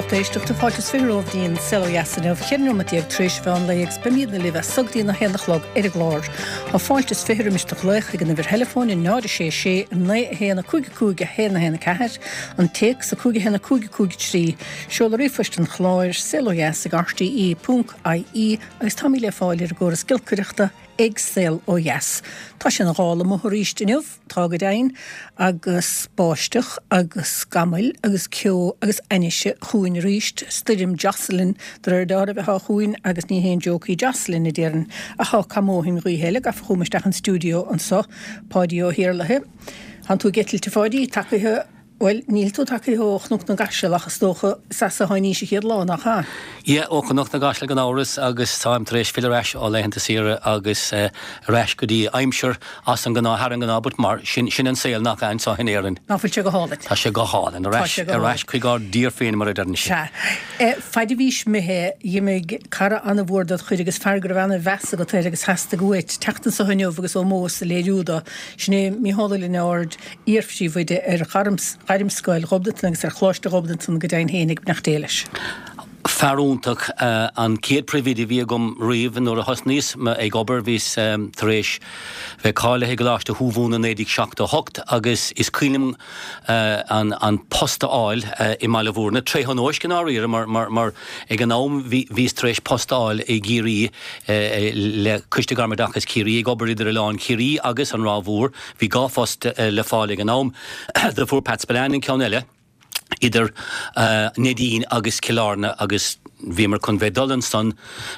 Lucht éisteachta, fáilte is 20 romhaibh go dtí an Saol Ó Dheas inniu, 14 nóiméad tar éis an mheán lae agus beimídne libh as so go dtí an 1 a chlog ar an gclár. Tá fáilte is 20 roimis do ghlaoch chuig an uimhir theileafóin 0 6 6 9 1 5 5 1 1 4, an téacs 5 1 5 5 3, seoladh ríomhphoist an chláir, saolodheas ag rte ponc ie agus táimid le fáil ar an gcóras giolcaireachta ag Saol Ó Dheas. Tá sé ina ghál amuigh arís inniu. Tá go deimhin, agus báisteach agus scamaill agus ceo agus ainnise chugainn arís, stoirm Jocelyn de réir dealraimh atá chugainn agus ní haon joke í Jocelyn, a déarfainn. Ach tá cuma ó shin gaoithe eile gafa chugam isteach an stiúideo anso, Páidí Ó hIarlaithe. Tánn tú ag eitilt, a Pháidí, tagaithe. Bhuel, níl tú tagaithe ó Chnoc na gCaiseal ach is dócha is as a tháinís an chéad lá, nach ea? Yeah, ó Chnoc na gCaiseal gan amhras agus táim tar éis filleadh ar ais ó laethanta saoire agus ar ais go dtí aimsir as an ngnáth, thar an ngnáth, but mar sin, sin an saol nach ea anseo in Éirinn. Nach bhfuil sé go hálainn? Tá sé go hálainn, ar ais, ar ais chuig ár dtír féin mar a deireann siad. Sea. Faid a bhís imithe, dh'imigh cara an-mhór dod chuid agus fear go raibh ana-mheas agat air agus theastaigh uait teacht anso inniu agus ómós a léiriú do, sin é Mícheál Ó Lionáird, iar-phríomhoide ar Ghairmscoil Ghobnatan agus ar Choláiste Ghobnatan go deimhin féin ag beannacht Dé leis. Fear iontach, an chéad phríomhoide a bhí agam riamh nuair a thosnaíos ag obair bhíos tar éis bheith cáilithe i gColáiste Thuamhumhan i 1978 agus is cuimhin liom an post a fháil i mBaile Bhúirne, tré thionóisc i ndáiríre mar mar ag an am bhíos tar éis post a fháil i gCiarraí le Coiste Gairmoideachais Chiarraí ag obair idir Oileán Chiarraí agus an Ráth Mhór. Bhí 2 phost le fáil ag an am. Do fuair Pat Spillane an ceann eile idir Neidín agus Cill Airne agus bhíomar chun bheith dul ansan.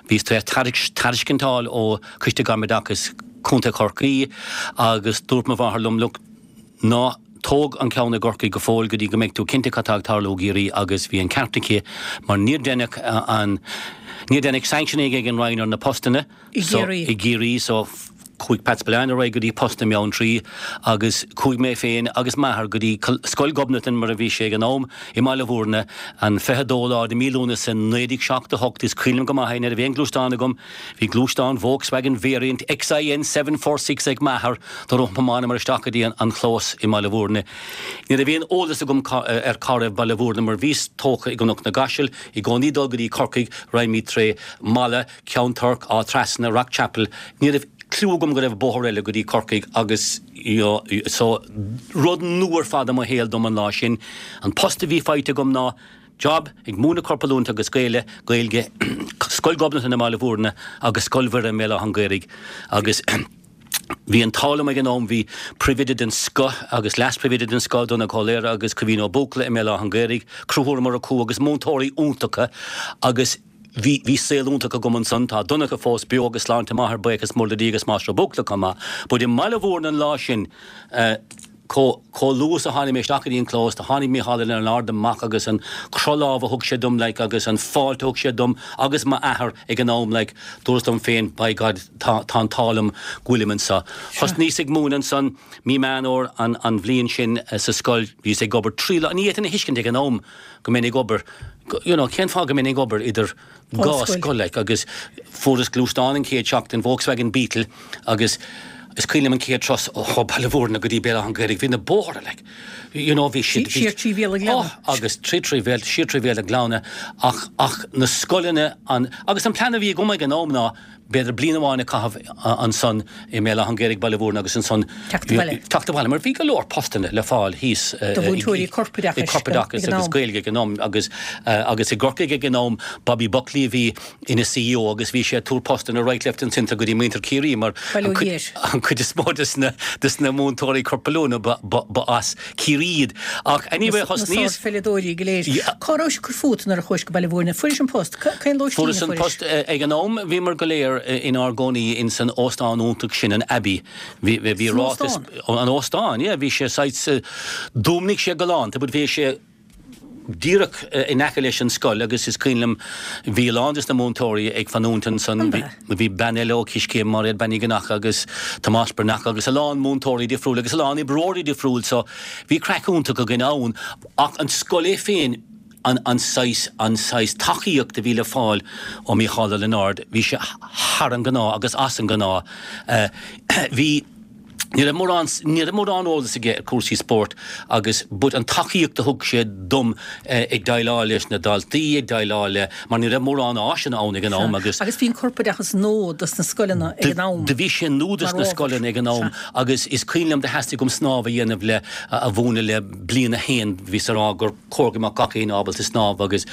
Bhíos tar éis tairiscint a fháil ó Choiste Gairmoideachais Chontae Chorcaí agus dúirt mo mháthair liom, look, ná tóg an ceann i gCorcaigh go fóill go dtí go mbeidh tú cinnte cad tá ag tarlú i gCiarraí agus bhí an ceart aici mar níor deineadh an, níor deineadh sanctioning ag an Roinn ar na postanna. I gCiarraí. I gCiarraí so chuaigh Pat Spillane ar aghaidh go dtí post i mBeanntraí agus chuaigh mé féin agus m'athair go dtí Scoil Ghobnatan mar a bhí sé ag an am i mBaile Bhúirne an 22 lá de mí Lúnasa 1978 is cuimhin liom go maith é ní raibh aon ghluaisteán agam bhí gluaisteán Volkswagen Variant XIN 746 ag m'athair do thiomáineamar isteach go dtí an chlós i mBaile Bhúirne ní raibh aon eolas agam ar cá raibh Baile Bhúirne mar bhíos tógtha i gCnoc na gCaiseal i gcónaí dul go dtí Corcaigh raghaimid tré Mala Ceann Toirc, Áth Trasna, Rock Chapel, ní raibh cliú agam go raibh bóthar eile go dtí Corcaigh agus you know so rud nua ar fad i mo shaol dom an lá sin. An post a bhí faighte agam ná job ag múineadh corpoiliúint agus Gaeile, Gaeilge, Scoil Ghobnatan i mBaile Bhúirne agus Scoil Mhuire i mBéal Átha an Ghaorthaidh agus bhí an t-ádh liom ag an am, bhí príomhoide den scoth agus leas-phríomhoide den scoth, Donncha Ó Laoire agus Caoimhín Ó Buachalla i mBéal Átha an Ghaorthaidh, croíchúramóir acu agus múinteoirí iontacha agus Bhí, bhí saol iontach agam ansan, tá Donncha fós beo agus sláinte maith air, buíochas mór le Dia agus Máistir Ó Buachalla chomh maith. But i mBaile Bhúirne an lá sin, eh, chomh, chomh luath is a tháinig mé isteach go dtí an clós, do tháinig Mícheál Ó Lionáird amach agus an croth lámh a thug sé dom, like, agus an fáilte a thug sé dom agus m'athair ag an am, like, dúras liom féin, by God, tá, tá an t-ádh liom go bhfuilim anso. Thosnaíos ag múineadh ansan mí Meán Fhómhair an, an bhliain sin sa scoil, bhíos ag obair trí lá, ní fhéadfainn a thuiscint ag an am, go mbeinn ag obair, you know, cén fáth go mbeinn ag obair idir dhá scoil, like, agus fuaireas gluaisteán an chéad seachtain, Volkswagen Beetle, agus is cuimhin liom an chéad turas ó Baile Bhúirne go dtí Béal Átha an Ghaorthaidh, bhí na bóithre, like, you know, bhí siad, Siar trí Bhéal an Ghleanna. Oh, agus trí trí Bhéal, siar trí Bhéal an Ghleanna, ach, ach na scoileanna, an, agus an plean a bhí agam ag an am ná, b'fhéidir bliain amháin a chaitheamh ansan i mBéal Átha an Ghaorthaidh, Baile Bhúirne agus ansan Teacht abhaile. teacht abhaile mar bhí go leor postanna le fáil thíos Do mhúinteoirí corpoideachais corpoideachais ag an agus am. Gaeilge ag an am agus agus i gCorcaigh ag an am Bobby Buckley a bhí ina CEO agus bhí sé ag tabhairt postanna right left and centre go dtí muintir Chiarraí mar Bail ó an chuid Dhia air. an chuid is mó des na des na múinteoirí corpoiliúna ba ba ba as Ciarraí iad. Ach anyway Na thosnaíos sárpheileadóirí go léir. Cá rabhais ag cur fút nuair a chuais go Baile Bhúirne? Fuairis an post. Cén lóistín a Fuaireas an fuairis? post. Ag an am bhíomar go léir inár gcónaí ins an óstán iontach sin, an Abbey. Bhí bhí San ráiteas óstán? An óstán, yeah. Bhí sé saghas, d'fhuaimnigh sé galánta but bhí sé díreach in aice leis an scoil agus is cuimhin liom bhí a lán des na múinteoirí ag fanúint ansan. An ea? Bhí bean eile ó Coiscéim, Máiréad Bean Uí Ghnacha agus Tomás Breathnach agus a lán múinteoirí difriúil agus a lán oibreoirí difriúil so bhí craic iontach againn ann ach an scoil é féin an an saghas an saghas tacaíocht a bhí le fáil ó Mícheál Ó Lionáird bhí sé thar an gnáth agus as an gnáth. Bhí. Ní raibh mórán, ní raibh mórán eolas aige ar cúrsaí spóirt agus but an tacaíocht a thug sé dom ag déileáil leis na daltaí, ag déileáil le, mar ní raibh mórán áiseanna ann ag an am agus. Agus bhí an corpoideachas nua dos na scoileanna ag an am. Do bhí sé nua dos na scoileanna ag an am agus is cuimhin liom do theastaigh uaim snámh a dhéanamh le, a mhúineadh le bliain a haon, bhíos a rá gur chóir go mbeadh gach éinne ábalta snámh agus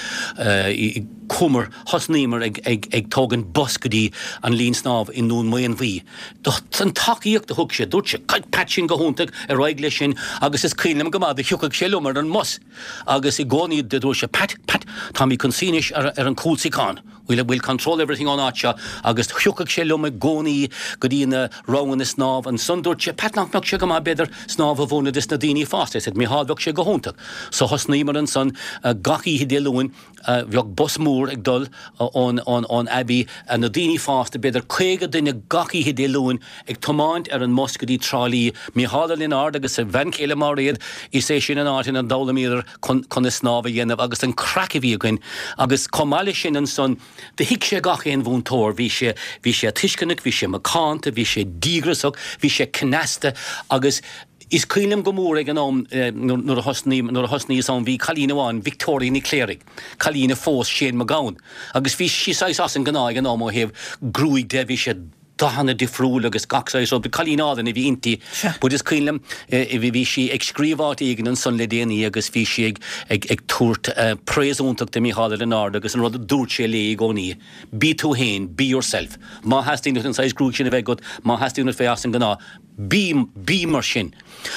chuamar, thosnaíomar ag, ag, ag tógaint bus go dtí an linn snámh i nDún Maonmhuí. An tacaíocht a thug sé, dúirt sé, Pat sin go hiontach, ar aghaidh leis sin agus is cuimhin liom go maith do thiocfadh sé liom ar an mbus agus i gcónaí do dúirt sé, Pat, Pat, táimid chun suí anois ar an cúlsuíochán, we'll, we'll control everything ón áit seo agus thiocfadh sé liom i gcónaí go dtí na ranganna snámh. Ansan dúirt sé, Pat, nach mbeadh sé go maith b'fhéidir snámh a mhúineadh dos na daoine fásta? I said, Micheál, bheadh sé go hiontach. So thosnaíomar ansan gach oíche Dé Luain. Bheadh bus mór ag dul ón Abbey, na daoine fásta, b'fhéidir 50 duine gach oíche Dé Luain ag tiomáint ar an mbus go dtí Trá Lí. Micheál Ó Lionáird agus a bhean chéile Máiréad, is é sin an áit ina d'fhoghlaimíodar conas snámh a dhéanamh agus an craic a bhí againn. Agus chomh maith leis sin ansan, do thuig sé gach aon mhúinteoir, bhí sé, bhí sé tuisceanach, bhí sé macánta, bhí sé díograsach, bhí sé cneasta agus, Is cuimhin liom go mór ag an am nuair a thosnaigh, nuair a thosnaíos ann, bhí cailín amháin, Victoria Ní Chléirigh, cailín a phós Shane Mac Gabhann, agus bhí sí saghas as an ngnáth ag an am ó thaobh gruaig de, bhí sé dathanna difriúil agus gach saghas rud, cailín álainn a bhí inti. But is cuimhin liom, bhí sí ag scríobh áit éigin ansan le déanaí agus bhí sí ag, ag, ag tabhairt praise iontach do Mícheál Ó Lionáird agus an rud a dúirt sé léi i gcónaí, bí tú fhéin, be yourself. Má theastaíonn uait an saghas gruaig sin a bheith agat, má theastaíonn uait bheith as an ngnáth, Bí, bí mar sin.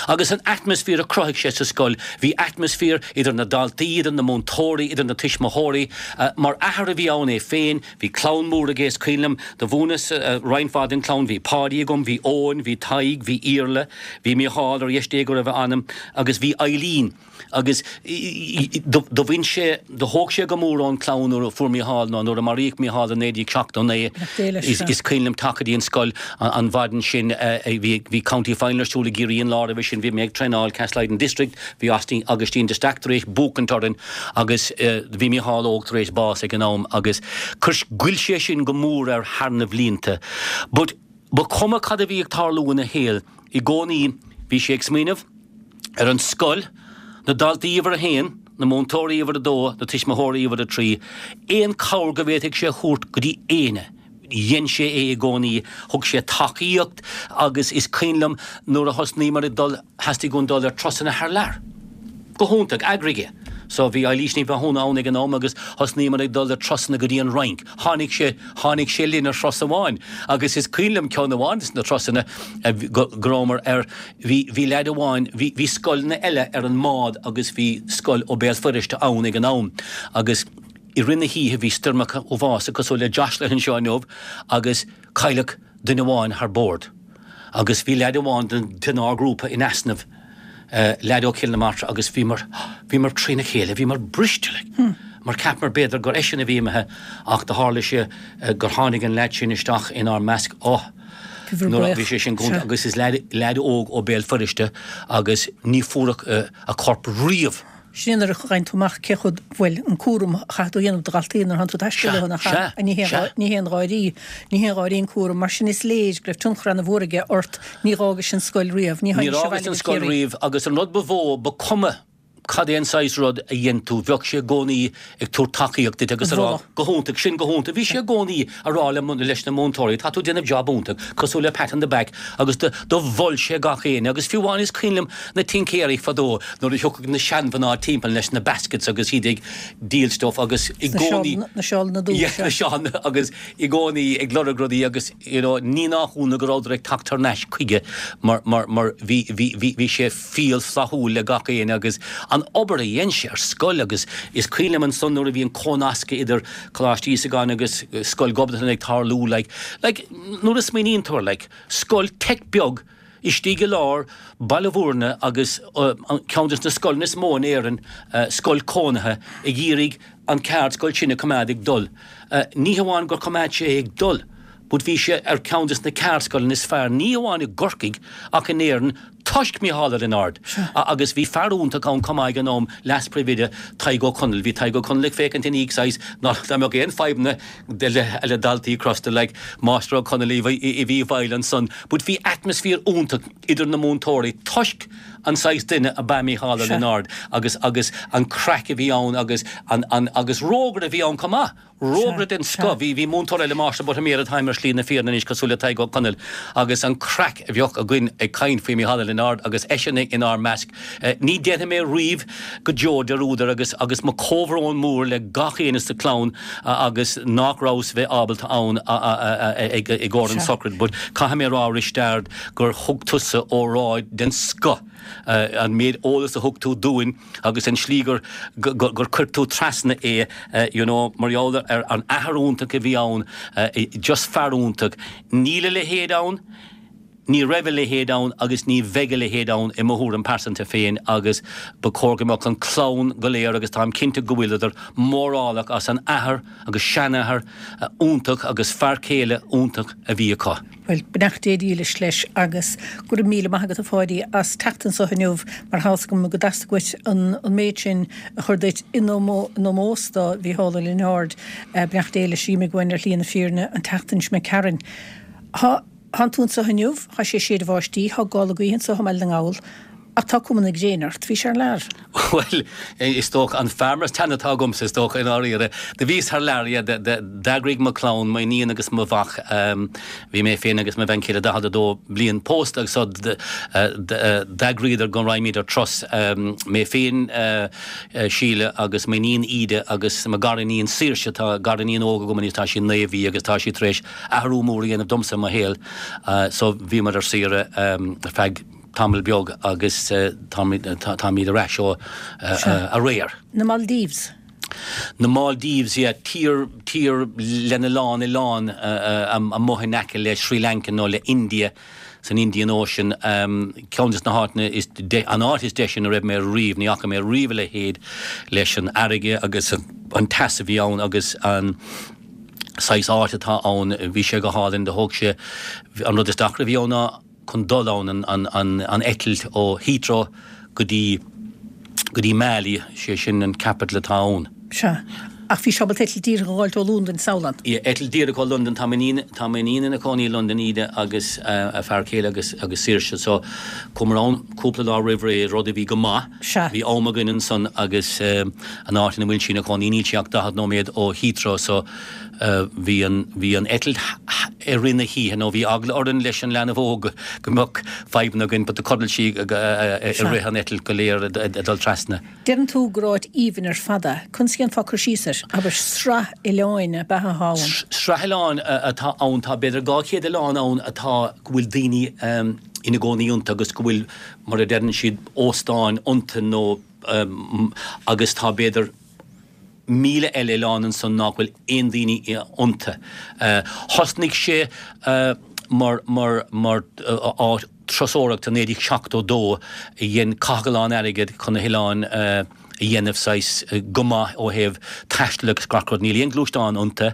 Agus an atmaisféar a chruthaigh sé sa scoil, bhí atmaisféar idir na daltaí, idir na múinteoirí, idir na tuismitheoirí. Mar athair a bhí ann é féin, bhí clann mór aige, is cuimhin liom, do mhúineas roinnt mhaith den chlann, bhí Páidí agam, bhí Eoin, bhí Tadhg, bhí Iarla, bhí Mícheál, ar dheis Dé go raibh a anam, agus bhí Eileen. Agus do bhain sé, do thóg sé go mór ón chlann nuair a fuair Mícheál, nó nuair a maraíodh Mícheál i 1979. Is cuimhin liom teacht go dtí an scoil an mhaidin sin, bhí County Final ar siúl i gCiarraí an lá roimhe sin, bhí mé ag traenáil Castlelyden District, bhí Augustín de Staic tar éis buachaint orainn agus bhí Mícheál Óg tar éis bás ag an am agus chuir, ghoill sé sin go mór air thar na bhlianta. But ba chuma cad a bhí ag tarlú ina shaol, i gcónaí bhí sé ag smaoineamh ar an scoil, na daltaí uimhir a haon, na múinteoirí uimhir a dó, na tuismitheoirí uimhir a trí, aon chabhair go bhféadfadh sé a thabhairt go dtí éinne, dhein sé é i gcónaí, thug sé tacaíocht agus is cuimhin liom nuair a thosnaíomar ag dul, theastaigh uainn dul ar turasanna thar lear. Go hiontach, eagraigh é. So bhí Eilís Ní Mhathúna ann ag an am agus thosnaíomar ag dul ar turasanna go dtí an Fhrainc. Tháinig sé, tháinig sé linn ar thuras amháin agus is cuimhin liom ceann amháin de na turasanna go rabhamar ar, bhí, bhí leaid amháin, bhí, bhí scoileanna eile ar an mbád agus bhí scoil ó Béal Feirste ann ag an am agus i rith na hoíche bhí stoirmeacha uafásacha cosúil le Jocelyn anseo inniu agus cailleadh duine amháin thar bord agus bhí leaid amháin den ár grúpa in easnamh, leaid ó Chill na Martra agus bhíomar, bhíomar trína chéile, bhíomar briste like mar cheapamar b'fhéidir gur eisean a bhí imithe ach do tharla sé gur tháinig an leaid sin isteach inár measc, oh nuair a bhí sé sin go agus is leaid, leaid óg ó Béal Feirste agus ní fuaireadh a chorp riamh. Sin é nuair a fhaigheann tú amach cé chomh, bhuel, an cúram a chaithfidh tú a dhéanamh do dhaltaí nuair atánn tú ag taisteal leo, nach ea? Ní haon, ní haon gháirí, ní haon gháirí an cúram. Mar sin is léir go raibh tionchar ana-mhór aige ort. Ní dh'fhágais an scoil riamh. Ní Níor fhágas an scoil riamh agus an rud ba mhó, ba cuma cad é an saghas rud a dhein tú, bheadh sé i gcónaí ag tabhairt tacaíocht duit agus a rá, go hiontach, sin go hiontach. Bhí sé i gcónaí a rá le, leis na múinteoirí, tá tú ag déanamh job iontach, cosúil le pat on the back agus do, do mhol sé gach éinne agus fiú amháin is cuimhin liom na tincéirí fadó nuair a thiocfadh na seanmhná timpeall leis na baskets agus iad ag díol stuff agus i gcónaí na seálanna dubha yeah, na seálanna agus i gcónaí ag lorg rudaí agus you know ní nach ionadh go rabhadar ag teacht thar n-ais chuige mar mar mar bhí bhí bhí bhí sé fial flaithiúil le gach éinne agus an obair a dhein sé ar scoil agus is cuimhin liom ansan nuair a bhí an cónascadh idir Coláiste Íosagáin agus Scoil Ghobnatan ag tarlú like like nuair a smaoiníonn tú air like scoil teic beag istigh i lár Baile Bhúirne agus ceann de na scoileanna is mó in Éirinn, scoil cónaithe, ag iarraidh an ceardscoil sin a choimeád ag dul. Ní hamháin gur choimeád sé é ag dul, but bhí sé ar cheann de na ceardscoileanna is fearr, ní hamháin i gCorcaigh ach in Éirinn. toisc Mícheál Ó Lionáird. Agus bhí fear iontach ann chomh maith ag an am, leas-phríomhoide, Tadhg Ó Conaill. Bhí Tadhg Ó Conaill ag féachaint ina dhiaidh saghas ná dá mbeadh aon fadhbanna le daltaí crosta like Máistir Ó Conaill a bhí i bhfeighil ansan. But bhí atmaisféar iontach idir na múinteoirí toisc an saghas duine ab ea Mícheál Ó Lionáird agus agus an craic a bhí ann agus an an agus rógaire a bhí ann chomh maith. Rógaire den scoth. Bhí bhí múinteoir eile Máistir Buttimer atá ar Shlí na Fírinne anois cosúil le Tadhg Ó Conaill agus an craic a bheadh againn ag caint faoi Mícheál Ó Lionáird agus eisean inár measc. Ní déanfaidh mé riamh go deo dearúd air agus agus mo comhbhrón mór le gach éinne sa clann agus nach rabhas bheith ábalta ann i gcomhair an sochraid but caithfidh mé a rá Risteard gur thug tusa óráid den scoth an méid eolas a thug tú dúinn agus an slí gur gur chuir tú trasna é you know mar gheall ar an athair iontach a bhí ann just fear iontach níl a leithéid ann Ní raibh a leithéid ann agus ní bheidh a leithéid ann i mo thuairim pearsanta féin agus ba chóir go mbeadh an clann go léir, agus táim cinnte go bhfuileadar, mórálach as an athair agus seanathair iontach agus fear céile iontach a bhí acu. Bhuel, beannacht Dé dhílis leis agus go raibh míle maith agat a Pháidí as teacht anso inniu mar tá 'fhios agam go dteastaigh uait an méid sin a chur duit in ómós do Mhícheál Ó Lionáird. Beannacht Dé leis a d'imigh uainn ar shlí na fírinne an tseachtain seo imigh tharainn. Tá. Tánn tú anso inniu, tá sé ag séideadh báistí, tá gála gaoithe anso i mBaile na nGall, ach tá cuma na gréine ort. Bhís thar lear. Bhuel, is dócha, an fear mar teann atá agamsa, is dócha, i ndáiríre. Do bhíos thar lear, yeah, d'eagraigh mo chlann, m'iníon agus mo mhac, bhí mé féin agus mo bhean chéile 42 bliain pósta agus so d'eagraíodar go raghaimid ar turas, mé féin, Síle agus m'iníon Íde agus mo ghariníon Saoirse, tá gariníon óg agam anois, tá sí naoi mhí agus tá sí tar éis athrú mór a dhéanamh domsa i mo shaol so bhíomar ar saoire ar feadh tamall beag agus táimid ar ais ó aréir. Na Maldives. Na Maldives, yeah, tír, tír lena lán oileán amuigh in aice le Sri Lanka nó le India san Indian Ocean, ceann des na háiteanna is, an áit is deise ina raibh mé riamh, ní fhaca mé riamh a leithéid leis an fharraige agus an teas a bhí ann agus an. saghas áit atá ann, bhí sé go hálainn, do thóg sé, an rud is deacra a bhí ann ná chun dul ann, an eitilt ó Heathrow go dtí, go dtí Malé, sé sin an capital atá ann. Sea. Ach bhí sibh ábalta eitilt díreach a dh'fháilt ó Londain, samhlaím. Yeah, eitilt díreach ó Londain, tá m'iníon, tá m'iníon ina cónaí i Londain, Íde, agus a fear céile agus, agus Saoirse, so chuamar ann cúpla lá roimh ré, rud a bhí go maith. Sea. Bhí am againn ansan agus an áit ina bhfuil sí ina cónaí níl sí ach 40 nóiméad ó Heathrow so bhí an, bhí an eitilt i rith na hoíche nó bhí eagla orainn leis an leanbh óg go mbeadh fadhbanna againn but do chodail sí i rith an eitilt go léir ag dul trasna. Deireann tú gur áit aoibhinn ar fad é. Conas a dhéanfá cur síos air? Abair, sraith oileáin ab ea atá ann? Sraith oileán atá ann. Tá b'fhéidir 200 oileán ann atá, go bhfuil daoine ina gcónaí iontu agus go bhfuil mar a deireann siad, óstáin iontu nó agus tá b'fhéidir 1,000 eile oileán ansan nach bhfuil aon daoine iontu. Thosnaigh sé mar mar mar áit turasóireachta i 1972 a dhein caitheadh a lán airgead chun na hoileáin a dhéanamh saghas go maith ó thaobh taistil agus gach rud. Níl aon gluaisteán iontu.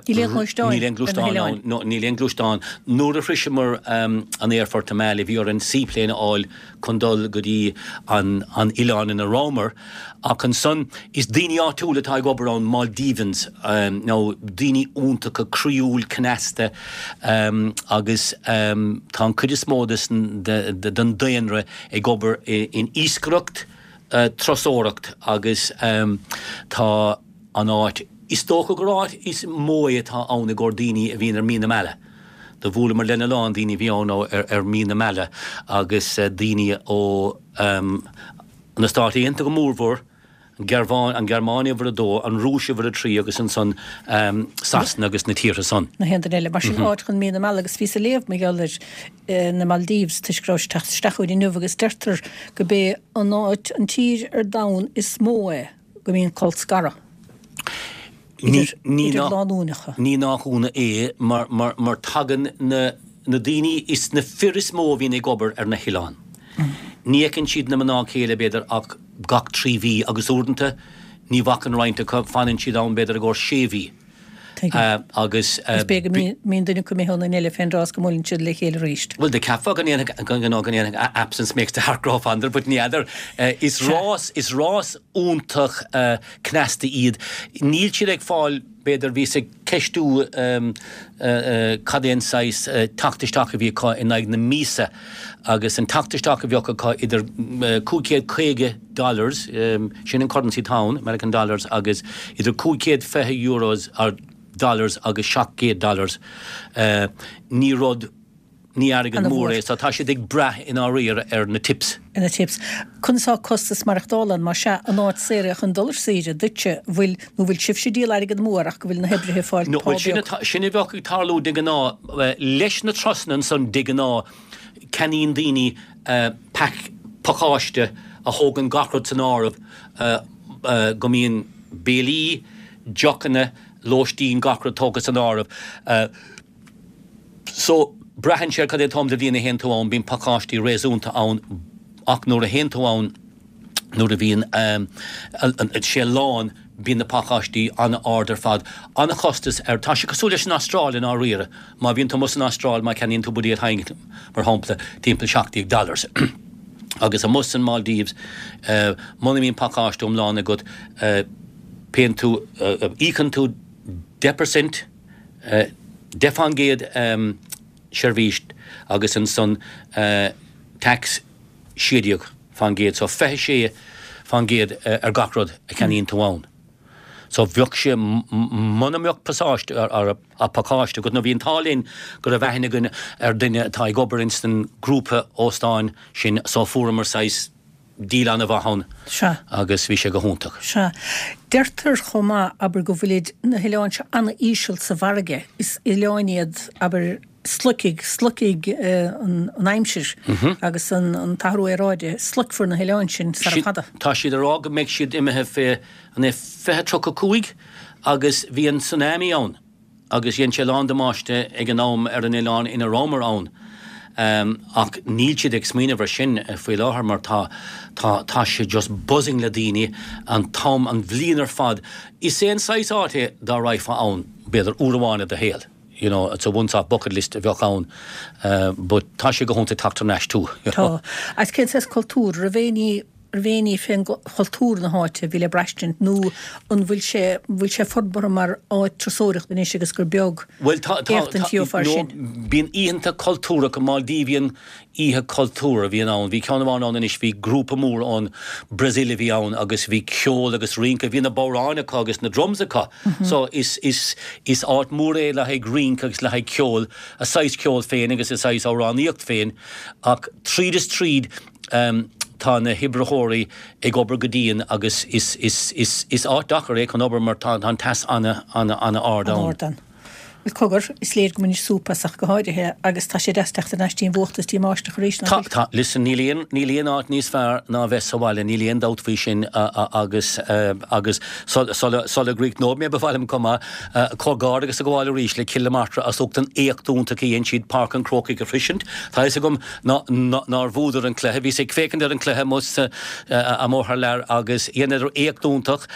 Níl aon ghluaisteáin Níl aon gluaisteán ann. No, níl aon gluaisteán. Nuair a shroiseamar an aerfort i Malé bhí orainn seaplane a fháil chun dul go dtí an an oileán ina rabhamar. Ach ansan is daoine áitiúla atá ag obair ann, Maldivians, nó daoine iontacha, croíúil, cneasta agus tá an chuid is mó den daonra ag obair in iascaireacht, turasóireacht agus tá an áit, is dócha gur áit is mó é atá ann i gcomhair daoine a bhíonn ar mí na meala. Do bhuaileamar lena lán daoine a bhí ann ar mí na meala agus daoine ó na Stáit Aontaithe go mórmhór, an Ghearmáin, an Ghearmáin uimhir a dó, an Rúis uimhir a trí agus ansan Sasana agus na tíortha san. Na haon duine eile. Mar sin áit chun mí na meala agus bhíos ag léamh mar gheall ar na Maldives toisc go raibh sé ag teacht isteach chugainn inniu agus deirtear go b'é an áit, an tír ar domhan is mó é go mbíonn colscaradh idir, idir lánúineacha. Ní nach ionadh é mar, mar, mar tagann na, na daoine, is na fir is mó a bhíonn ag obair ar na hoileáin. Ní fheiceann siad na mná céile b'fhéidir ach gach 3 mhí agus uaireanta ní bhacann roinnt acu, fanann siad ann b'fhéidir i gcomhair 6 mhí. Agus. Is b'fhéidir go mbíonn duine acu imithe ón duine eile fén dtráth is go mbuaileann siad le chéile arís. Bhuel, do cheapfá go ndéanfadh, go ndéanfadh absence makes the heart grow fonder, but ní fheadar. Is rás, is rás iontach cneasta iad. Níl siad ag fáil, b'fhéidir, bhíos ag ceistiú cad é an saghas teacht isteach a bhí acu in aghaidh na míosa agus an teacht isteach a bheadh acu idir 550 dollars, sin an currency atá ann, American dollars, agus idir 520 euros or dollars agus 700 dollars, ní rud, ní airgead mór é, so tá siad ag brath i ndáiríre ar na tips. Ar na tips. Conas tá costas maireachtála ann, más ea, an áit saor é chun dul ar saoire duitse, bhfuil, nó bhfuil sibhse ag díol airgead amú air ach go bhfuil na hoibrithe ag fáil pá beag? No, sin a bheadh ag tarlú de ghnáth, leis na turasanna ansan de ghnáth, ceannaíonn daoine pack, pacáiste a thógann gach rud san áireamh, go mbíonn béilí, deochanna, lóistín, gach rud tógtha san áireamh. So, braitheann sé ar cad é an t-am de bhliain a théann tú ann, bíonn pacáistí réasúnta ann ach nuair a théann tú ann, nuair a bhíonn sé lán, bíonn na pacáistí an-ard ar fad. An-chostas air. Tá sé cosúil leis an Astráil i ndáiríre. Má bhíonn tú amuigh san Astráil, má cheannaíonn tú buidéal Heineken, mar shampla, timpeall 17 dollars. Agus amuigh san Maldives, muna mbíonn pacáiste iomlán agat, payann tú, íocann tú 10%, 10% seirbhís agus ansan tax 16%, so 26% ar gach rud a cheannaíonn tú ann. So bheadh sé, muna mbeadh pasáiste, pacáiste agat, nó bhí an t-ádh linn go raibh aithne againn ar duine atá ag obair ins an grúpa óstáin sin so fuaireamar saghas deal an-mhaith ann Sea. agus bhí sé go hiontach. Sea. Deirtear chomh maith, abair, go bhfuilid na hoileáin seo an-íseal sa bhfarraige. Is oileáin iad, abair, sloicfidh, sloicfidh an aimsir agus an t-athrú aeráide, sloicfear na hoileáin sin sara fada. Tá siad ag rá go mbeidh siad imithe fé, an é 2035 agus bhí an tsunami ann agus dhein sé a lán damáiste ag an am ar an oileán ina rabhamar ann. Ach níl siad ag smaoineamh ar sin faoi láthair mar tá, tá, tá sé just buzzing le daoine an t-am, an bhliain ar fad. Is é an saghas áit é dá raghfá ann, b'fhéidir, uair amháin i do shaol. You know, it's a once off bucket list a bheadh ann but tá sé go hiontach teacht thar n-ais too, you know. Tá. Agus cén saghas cultúr? Raibh aon ní, raibh aon ní fén chultúr na háite a bhí le braistint nó an bhfuil sé, bhfuil sé forbartha mar áit turasóireachta anois agus gur beag Bhuel tá, tá, éachtaint tá, gheofá no, sin? bíonn oícheanta cultúrtha, Maldivian oíche cultúr a bhíonn ann. Bhí ceann amháin ann anois, bhí grúpa mór ón Brazil a bhí ann agus bhí ceol agus rince, bhí na bodhráin acu agus na drums acu. So is, is, is áit mhór é le haghaidh rince agus le haghaidh ceol, a saghas ceol féin agus a saghas amhránaíocht féin ach tríd is tríd tá na hoibritheoirí ag obair go dian agus is, is, is, is áit deacair é chun obair mar tá, tá an teas ana, ana, ana ard ann. Bhuel, cogar, is léir go mbainid súp as ach go háirithe, agus tá sé deas teacht thar n-ais dtí an bhfuacht is dtí an mbáisteach arís, nach bhfuil? Tá, tá. Listen, níl aon, níl aon áit níos fearr ná a bheith sa bhaile, níl aon dabht faoi sin agus, agus sula, sula gcríochnóidh mé ba mhaith liom chomh maith comhghairdeachas a ghabháil arís le Cill na Martra as ucht an éacht iontach a dhein siad Páirc an Chrócaigh a shroisint. Tá fhios agam ná, nár bhuadar an cluiche, bhíos ag féachaint ar an cluiche amuigh sa, amuigh thar lear agus dheineadar éacht iontach.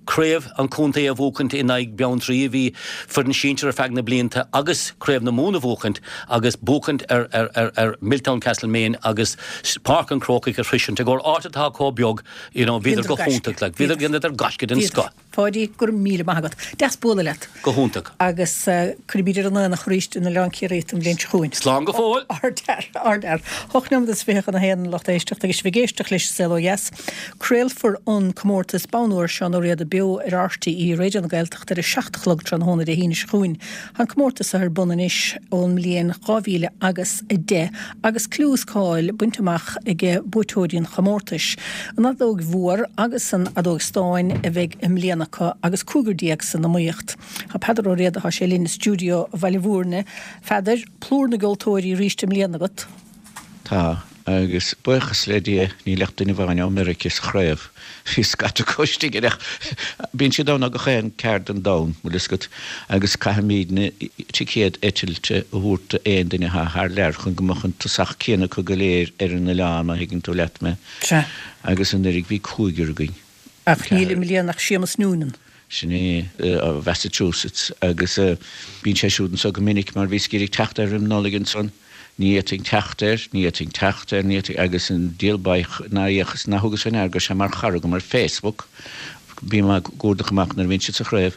Craobh an chontae a bhuachaint in aghaidh Beanntraí a bhí foireann sinsir ar feadh na blianta agus Craobh na Mumhan a bhuachaint agus buachaint ar ar Milltown Castlemaine agus Páirc an Chrócaigh a shroisint i gcomhair áit atá chomh beag you know bhíodar go hiontach like bhíodar dheineadar gaisce den scoth. Pháidí, go raibh míle maith agat. Deas bualadh leat. Go hiontach. Agus cuirfimid ar an aonach arís in Oileán Ciarraí tú an bhliain seo chugainn. Slán go fóill! Ardfhear, ardfhear. Hocht nóiméad is fiche chun a haon, lucht éisteachta, agus sibh ag éisteacht leis An Saol Ó Dheas. Craolfar an comórtas Bonn Óir Seán Ó Riada beo ar RTÉ Raidió na Gaeltachta ar a 7 a chlog tráthnóna Dé hAoine seo chugainn. Tá an comórtas ar bun anois ón mbliain 2000 agus 10 agus clú is cáil bainte amach ag buaiteoirí an chomórtais. An fheadóg mhór agus an fheadóg stáin a bheidh i mbliana acu agus cúigear san iomaíocht. Tá Peadar Ó Riada, tá sé linn i stiúideo Bhaile Bhúirne. A Pheadair, plúr na gceoltóirí arís i mbliana agat. Tá, agus buíochas le Dia níl ach duine amháin ó Meirice sa chraobh. Bhí scata acu istigh air ach bíonn siad ann ó gach aon ceard den domhan, bhfuil fhios agat, agus caithfimídne ticéad eitilte a thabhairt d'aon duine atá thar lear chun go mbeadh an tosach céanna acu go léir ar an oileán, má thuigeann tú leat mé. Sea. Agus anuraidh bhí cúigear againn. Ach níl i mbliana ach Séamus Noonan. Sin é, ó Mhassachusetts agus bíonn sé siúd anso go minic mar bhíos ag iarraidh teacht air roim Nollaig ansan. Ní fhéadfainn teacht air, ní fhéadfainn teacht air, ní fhéadfainn, agus an diabhal baoth nár fhéachas, nár thugas fé ndeara go raibh sé mar chara agam ar Facebook, bím á gcuardach amach nuair a bhíonn siad sa chraobh,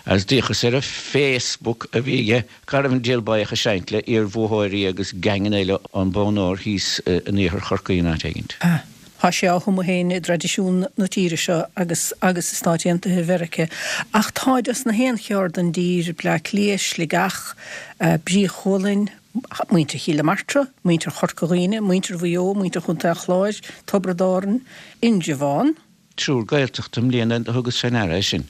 agus d'fhéachas ar an Facebook a bhí aige, cá raibh an diabhal baoth ag seinnt le iar-bhuaitheoirí agus geaingeanna eile ón Bonn Óir thíos in iarthar Chorcaí in áit éigint. Ah. Tá sé á thumadh féin i dtraidisiún na tíre seo agus agus i Stáit Aontaithe Mheirice. Ach táid as na haon cheard den dtír, Bleá Cliath, Sligeach, Brí Chualainn, muintir Chill na Martra, muintir Chorca Dhuibhne, muintir Mhaigh Eo, muintir Chontae an Chláir, Tiobraid Árann, Indreabhán. Triúr Gaeltachta i mbliana a thugas fé ndeara é sin.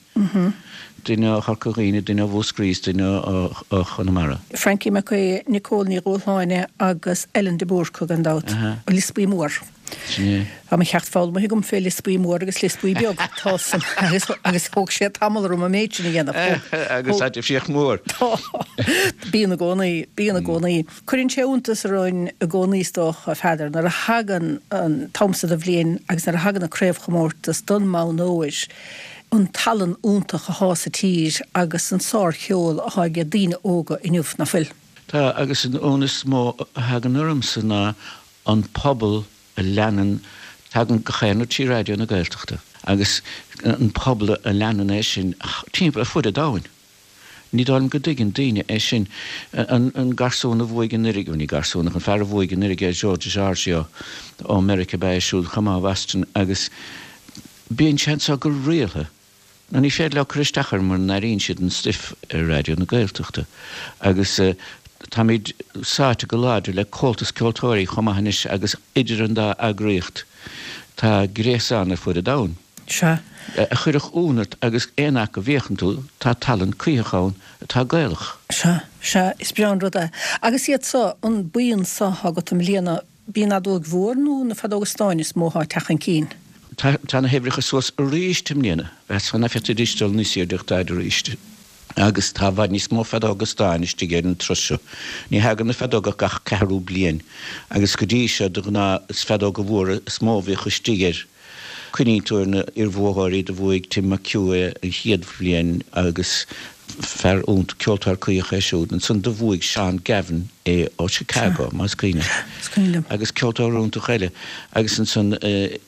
Duine ó Chorca Dhuibhne, duine ó Mhúscraí is duine ó Chonamara. Frankie Mac Aodha, Nicole Ní Dhúshláine agus Ellen de Búrca gan dabht. Lios Buí Mór. Sin é. Tá mo cheacht foghlamtha agam fé Lios Buí Mór agus Lios Buí Beag. Tá san agus agus thóg sé tamall orm an méid sin a dhéanamh. Agus tá difríocht mhór. Tá. Bíonn i gcónaí. Bíonn i gcónaí. Cuireann sé iontas orainn i gcónaí is dócha, a Pheadair, nuair a thagann an t-am so de bhliain agus nuair a thagann an craobhchomórtas don mbonn óir, an tallann iontach athá sa tír agus an sárcheol athá age daoine óga inniu, ná fuil? Tá, agus an ionadh is mó a thagann ormsa ná an pobal a leanann, tagann gach aon rud trí Raidió na Gaeltachta agus an pobal a leanann é sin timpeall ar fud an domhain. Ní dóigh liom go dtuigeann daoine é sin. An garsún a bhuaigh anuraidh, bhuel ní garsún ach an fear a bhuaigh anuraidh é Joe DiGiorgio ó Meiriceá ab ea é siúd chomh maith ó Bhoston agus bíonn sé anso go rialtha. Nó ní féidir leo cur isteach air mura n-airíonn siad an stuif ar Raidió na Gaeltachta. Agus táimid sáite go láidir le Comhaltas Ceoltóirí chomh maith anois agus idir an dá eagraíocht tá gréasán ar fud an domhain. Sea. A chuirfeadh ionadh ort agus aon áit go bhféachann tú, tá tallann cuítheach ann atá Gaelach. Sea, sea, is breá an rud é. Agus iad so, an buíon so athá agat i mbliana, b'í an fheadóig mhór nó na feadóga stáin is mó athá ag teacht chun cinn? Tá, tá na huimhreacha suas arís i mbliana. Mheasfá nach bhféadfaidís dul níos airde ach táid arís. Agus tá i bhfad níos mó feadóga stáin istigh ar an turas seo. Ní thagann na feadóga ach gach ceathrú bliain. Agus go dtí seo, de ghnáth, is feadóga mhóra is mó a bhíodh istigh air. Cuimhníonn tú ar na iarbhuaitheoirí, do bhuaigh Tim McHugh é an chéad bhliain agus fear iontach, ceoltóir cuítheach é siúd. Ansan do bhuaigh Seán Gavin é ó Chicago, más cuimhin leat. Agus ceoltóir iontach eile. Agus ansan,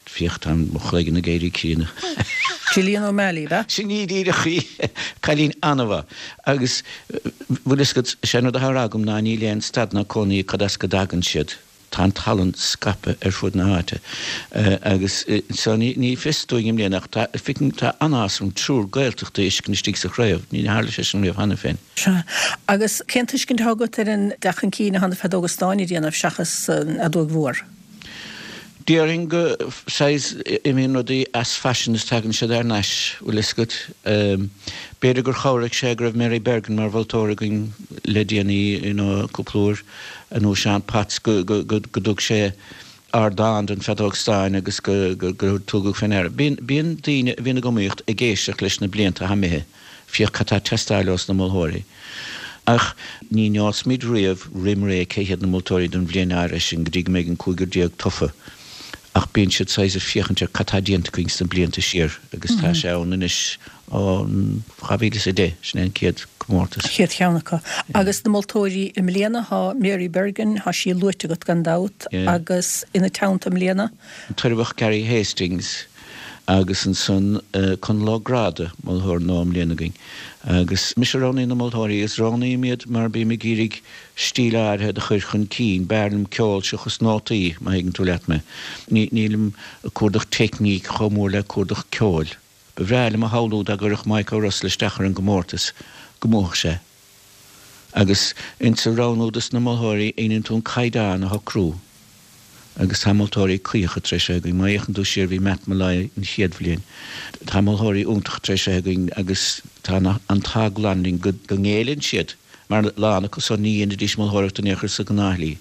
féach, tá mo chloigeann ag éirí críonna. Gillian O'Malley, ab ea? Sin í díreach í. Cailín an-mhaith. Agus, bhfuil fhios agat, is é an rud atá á rá agam ná níl aon stad ná cónaí cad as go dtagann siad. Tá an tallann scaipthe ar fud na háite agus so ní fios dúinn i mbliana ach tá, feicim, tá an-áthas orm triúr Gaeltachta a fheiscint istigh sa chraobh, ní tharla sé sin riamh cheana féin. Sea. Agus cén tuiscint atá agat ar an dteacht chun cinn atá na feadóga stáin ag déanamh seachas an fheadóig mhór? Déarfainn go, saghas, imíonn rudaí as faisean is tagann siad thar n-ais, bhfuil fhios agat. B'fhéidir gur chabhraigh sé go raibh Mary Bergin mar mholtóir againn le déanaí, you know, cúpla uair. nó Seán Potts, go dtug sé ardán don feadóg stáin agus go tugadh fé ndeara. Bíonn daoine a bhíonn ag iomaíocht ag éisteacht leis na blianta atá imithe, féach cad tá ag teastáil ós na moltóirí. Ach ní neosfaimid riamh roim ré cé hiad na moltóirí don bhliain áirithe sin go dtí go mbeidh an cúigear tofa. Ach bíonn siad saghas ag féachaint ar cad tá déanta againn sna blianta siar agus tá sé ann anois ó 2010, sin é an chéad comórtas. An chéad cheann acu. Agus na moltóirí i mbliana, tá Mary Bergin, tá sí luaite agat gan dabht, agus ina teannta i mbliana? An tOirbheach Gary Hastings agus ansan Conall Ó Gráda, moltóir nua i mbliana againn. Agus mise a roghnaíonn na moltóirí agus roghnaím iad mar bím ag iarraidh stíl áirithe do chur chun cinn. B'fhearr liom ceol seachas nótaí, má thuigeann tú leat mé. Nílim ag cuardach teicníc chomh mór le cuardach ceoil. Ba bhreá liom a shamhlú dá gcuirfeadh Mike O'Russell isteach ar an gcomórtas, go mbuafadh sé. Agus insa roghnú dos na moltóirí, déanann tú an caighdeán a shocrú. Agus tá moltóirí cuítheacha tar éis a bheith againn. Má fhéachann tú siar, bhí Matt Molloy an chéad bhliain. Tá moltóirí iontacha tar éis a bheith againn agus tá an t-ádh glan linn go ngéilleann siad, mar a lán acu san ní dhéanfaidís moltóireacht in aon chor sa ghnáthshlí.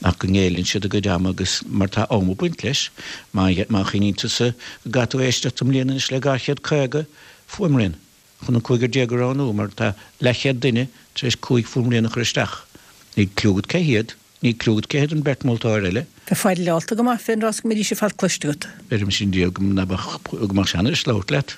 Ach go ngéilleann siad a gcuid ama agus mar tá am ag baint leis, má chuimhníonn tusa go gcaithfidh tú éisteacht i mbliana anois le 250 fuaimrian chun an cúigear déag a roghnú mar tá leathchéad duine tar éis cúig fuaimrian a chur isteach. Níl cliú agat cé hiad, níl cliú agat cé hiad an bheirt mholtóir eile. Bheifeá deighleálta go maith fén rás go mbeidís ar fad cloiste agat. Beirim sin diabhal go mbeadh, go mbeadh sé anois labhairt leat.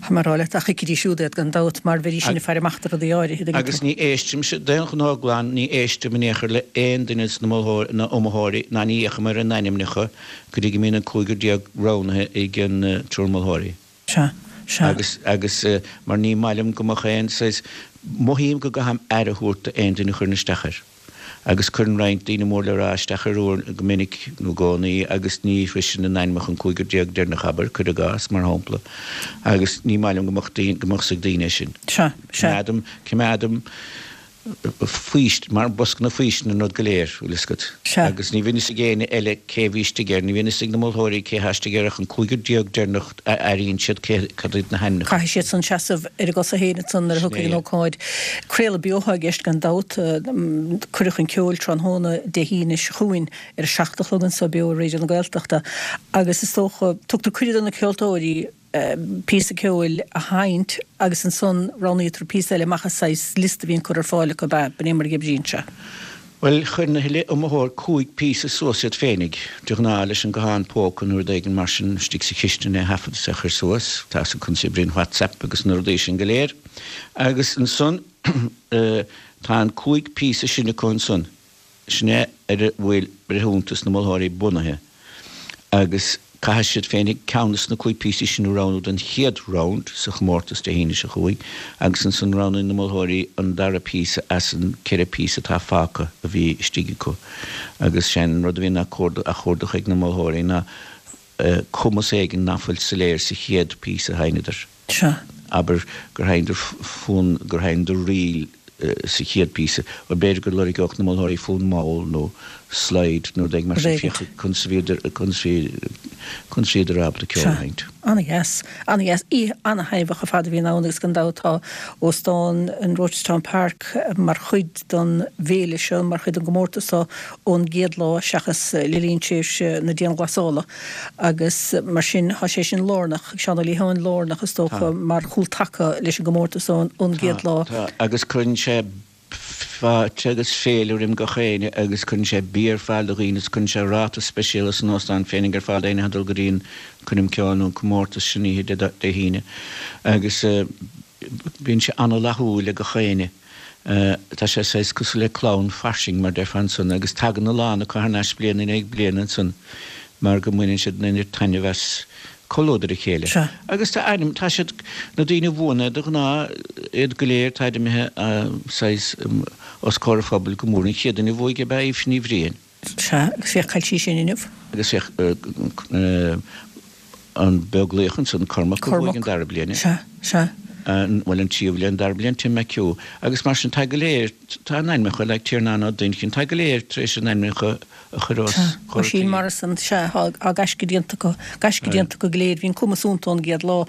Tá mé ag rá leat, ach thuigfidís siúd iad gan dabht, mar bheidís sin ag faire amach do rudaí áirithe, tuigeann tú. Agus ní éistimse, d'aon ghnó glan, ní éistim in aon chor le aon duine de na iomaitheoirí, ná ní fhéachaim ar a n-ainmneacha go dtí go mbíonn an 15 roghnaithe ag an triúr moltóirí. Sea, sea. Agus, agus, mar ní maith liom go mbeadh aon saghas, mothaím go gcaithim aire a thabhairt d'aon duine a chuireann isteach air. Agus cuireann roinnt daoine mór le rá isteach ar uair, go minic nó i gcónaí, agus ní shroiseann a n-ainmneacha an cúigear deireanach, abair, cuir i gcás, mar shampla. Agus ní maith liom go mbeadh daoine, go mbeadh 's ag daoine é sin. Sea, sea. Coimeádaim, coimeádaim faoist, mar bosca na faoistine an rud go léir, bhfuil fhios agat. Sea. Agus ní bhíonn fhios ag éinne eile cé bhí istigh air, ní bhíonn fhios ag na moltóirí cé thá istigh air ach an cúigear deireanach a airíonn siad cé, cad iad na hainmneacha. Caithfidh siad san seasamh ar a gcosa féin ansan nuair a Sin thiocfaidh é. an ócáid. Craoladh beo atá i gceist gan dabht. Cuireadh chun ceoil tráthnóna Dé hAoine seo chugainn ar a 7 a chlog anso beo ar Raidió na Gaeltachta agus is dócha, tugtar cuireadh do na ceoltóirí, píosa ceoil a sheinnt agus ansan roghnaítear píosa eile amach as saghas liosta a bhíonn curtha ar fáil acu, ab ea? B'in é mar a oibríonn sé. Bhuel, chuir na huile iomaitheoir 5 píosa suas iad féinig, de ghnáth leis an guthán póca nó rud éigin mar sin istigh sa chistin é a thaifead is é a chur suas, tá fhios agat conas a oibríonn WhatsApp agus na rudaí sin go léir. Agus ansan tá an 5 píosa sin acu ansan. Sin é ar a bhfuil breithiúntas na moltóirí bunaithe agus caithfidh siad féinig ceann des na 5 píosaí sin a roghnú don chéad round sa chomórtas Dé hAoine seo chugainn agus ansan roghnaíonn na moltóirí an dara píosa as an 4 píosa atá fágtha a bhí istigh acu agus sé'n rud a bhíonn á chuardach ag na moltóirí ná cumas éigin ná fuil soiléir sa chéad píosa a sheinneadar. Sea. Abair gur sheinneadar fonn, gur sheinneadar ríl sa chéad píosa. Bhuel, b'fhéidir go lorgeodh na moltóirí fonn mall nó slide nó rud éigin mar sin, féach conas a bhíodar, conas a bhí, conas a bhíodar ábalta ceol a Sea. sheinnt. Ana-dheas. Ana-dheas. Oíche ana-thaitneamhach ar fad a bhíonn ann agus gan dabht tá Óstán an Rochestown Park mar chuid den bhféile seo, mar chuid den gcomórtas seo ón gcéad lá seachas le linn tréimhse na dianghlasála agus mar sin tá sé sin lárnach, Seán Ó Liatháin, lárnach is dócha mar chúltaca leis an gcomórtas ón gcéad lá. Tá, agus cuireann sé fáilte agus féile roim gach éinne agus cuireann sé bia ar fáil do dhaoine is cuireann sé ráta speisialta san óstán féinig ar fáil d'éinne atá ag dul go dtí an coirm ceoil nó an comórtas sin oíche Dé hAoine agus bíonn sé ana-fhlaithiúil ag gach éinne. Tá sé saghas cosúil le clann fairsing, mar déarfá ansan, agus tagann a lán acu thar n-ais bliain i ndiaidh bliana ansan mar go mbaineann siad an oiread taitneamh as comhluadar a chéile. Sea. Agus tá ainm, tá siad, na daoine a bhuann é de ghnáth, iad go léir, táid imithe saghas os comhair an phobail go mór. An chéad duine a bhuaigh ab ea Aoife Ní Bhriain. Sea, agus féach cá bhfuil sí sin inniu. Agus féach an Beaglaoich ansan, Cormac a bhuaigh an dara bliain. Sea, sea. Bhuel, an tríú bliain, an dara bliain, Tim McHugh. Agus mar sin, tá go léir, tá a n-ainmneacha, like Tiarnán Ó Duinnchinn, tá go léir tar éis a n-ainmneacha a chur os Sea, comhair Oisín Morrison, sea, tá gaisce déanta acu, gaisce déanta acu go léir, bhí an cumas iontu ón gcéad lá.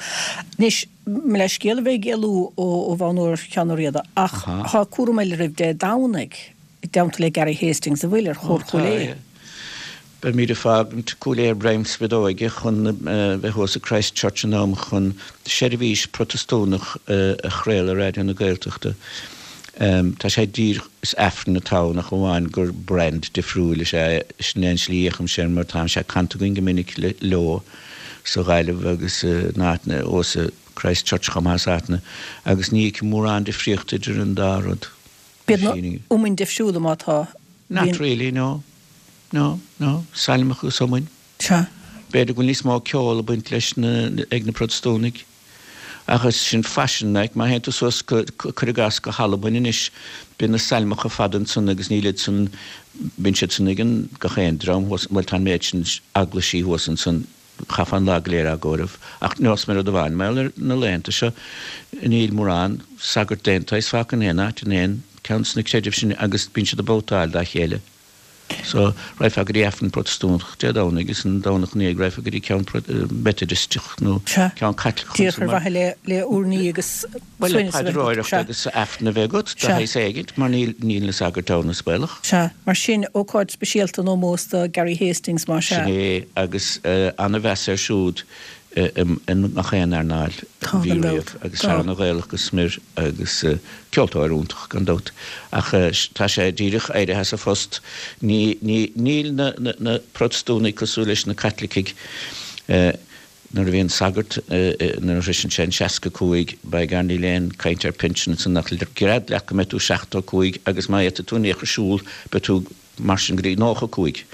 Anois, mo leithscéal a bheith ag éalú ó bhonn úr Sheáin Ó Riada, ach tá cúram eile oraibh Dé Domhnaigh. i dteannta le Gary Hastings an bhfuil ar Chór Chúil Aodha. Beimid ag fágaint Cúil Aodha ar greim spideoige chun bheith thuas i Christ Church in am chun seirbhís Protastúnach a chraoladh ar Raidió na Gaeltachta. Tá sé díreach, is Aifreann atá ann ach amháin gur brand difriúil is ea é. Sin é an slí a fhéachaimse air mar tá sé canta againn go minic leo sa Ghaillimh agus in áiteanna, thuas i Christ Church chomh maith is áiteanna agus ní fheicim mórán difríochta idir an dá rud. Bíonn na iomainn difriúla má tá. Not really, no. No, no. Sailmeacha agus iomainn. Sea. B'fhéidir go bhfuil níos mó ceol ag baint leis na, ag na Protastúnaigh. Ach is sin faisean, like, má théann tú suas go, cuir i gcás, go hAlbain anois, bíonn na sailmeacha fada ansan agus níl iad san, bíonn siad san ag an, gach aon dream thuas, bhuel tá an méid sin eaglaisí thuas ansan, Chaithfeá an lá go léir á gcomhaireamh. Ach neosfaidh mé rud amháin, mar gheall ar na laethanta seo, níl mórán sagart d'aon tsaghas fágtha in aon áit, in aon ceann de na creidimh sin agus bíonn siad ag babhtáil dá chéile. So, raghfá go dtí Aifreann Protastúnach Dé Domhnaigh agus an Domhnach ina dhiaidh raghfá go dtí ceann Meitidisteach nó ceann Caitliceach Díreach ar mhaithe le le urnaí agus Bhuel, le paidreoireacht agus Aifreann a bheith agat, de shaghas éigint, mar níl, níl na sagairt ann, is baolach. Sea, mar sin, ócáid speisialta in ómós do Gary Hastings, más ea. Sin é, agus ana-mheas air siúd i ngach aon earnáil a bhí riamh, agus fear ana-Ghaelach go smior agus ceoltóir iontach, gan dabht. Ach tá sé díreach éirithe as a phost. Ní, ní, níl na, na, na Protastúnaigh cosúil leis na Caitlicigh. Nuair a bhíonn sagart, nuair a shroiseann sé an 65, by gar níl aon caint ar pinsean ansan ach gread leat go mbeidh tú 75 agus má fhéadfaidh tú in aon chor siúl beidh tú mar sin go dtí 95.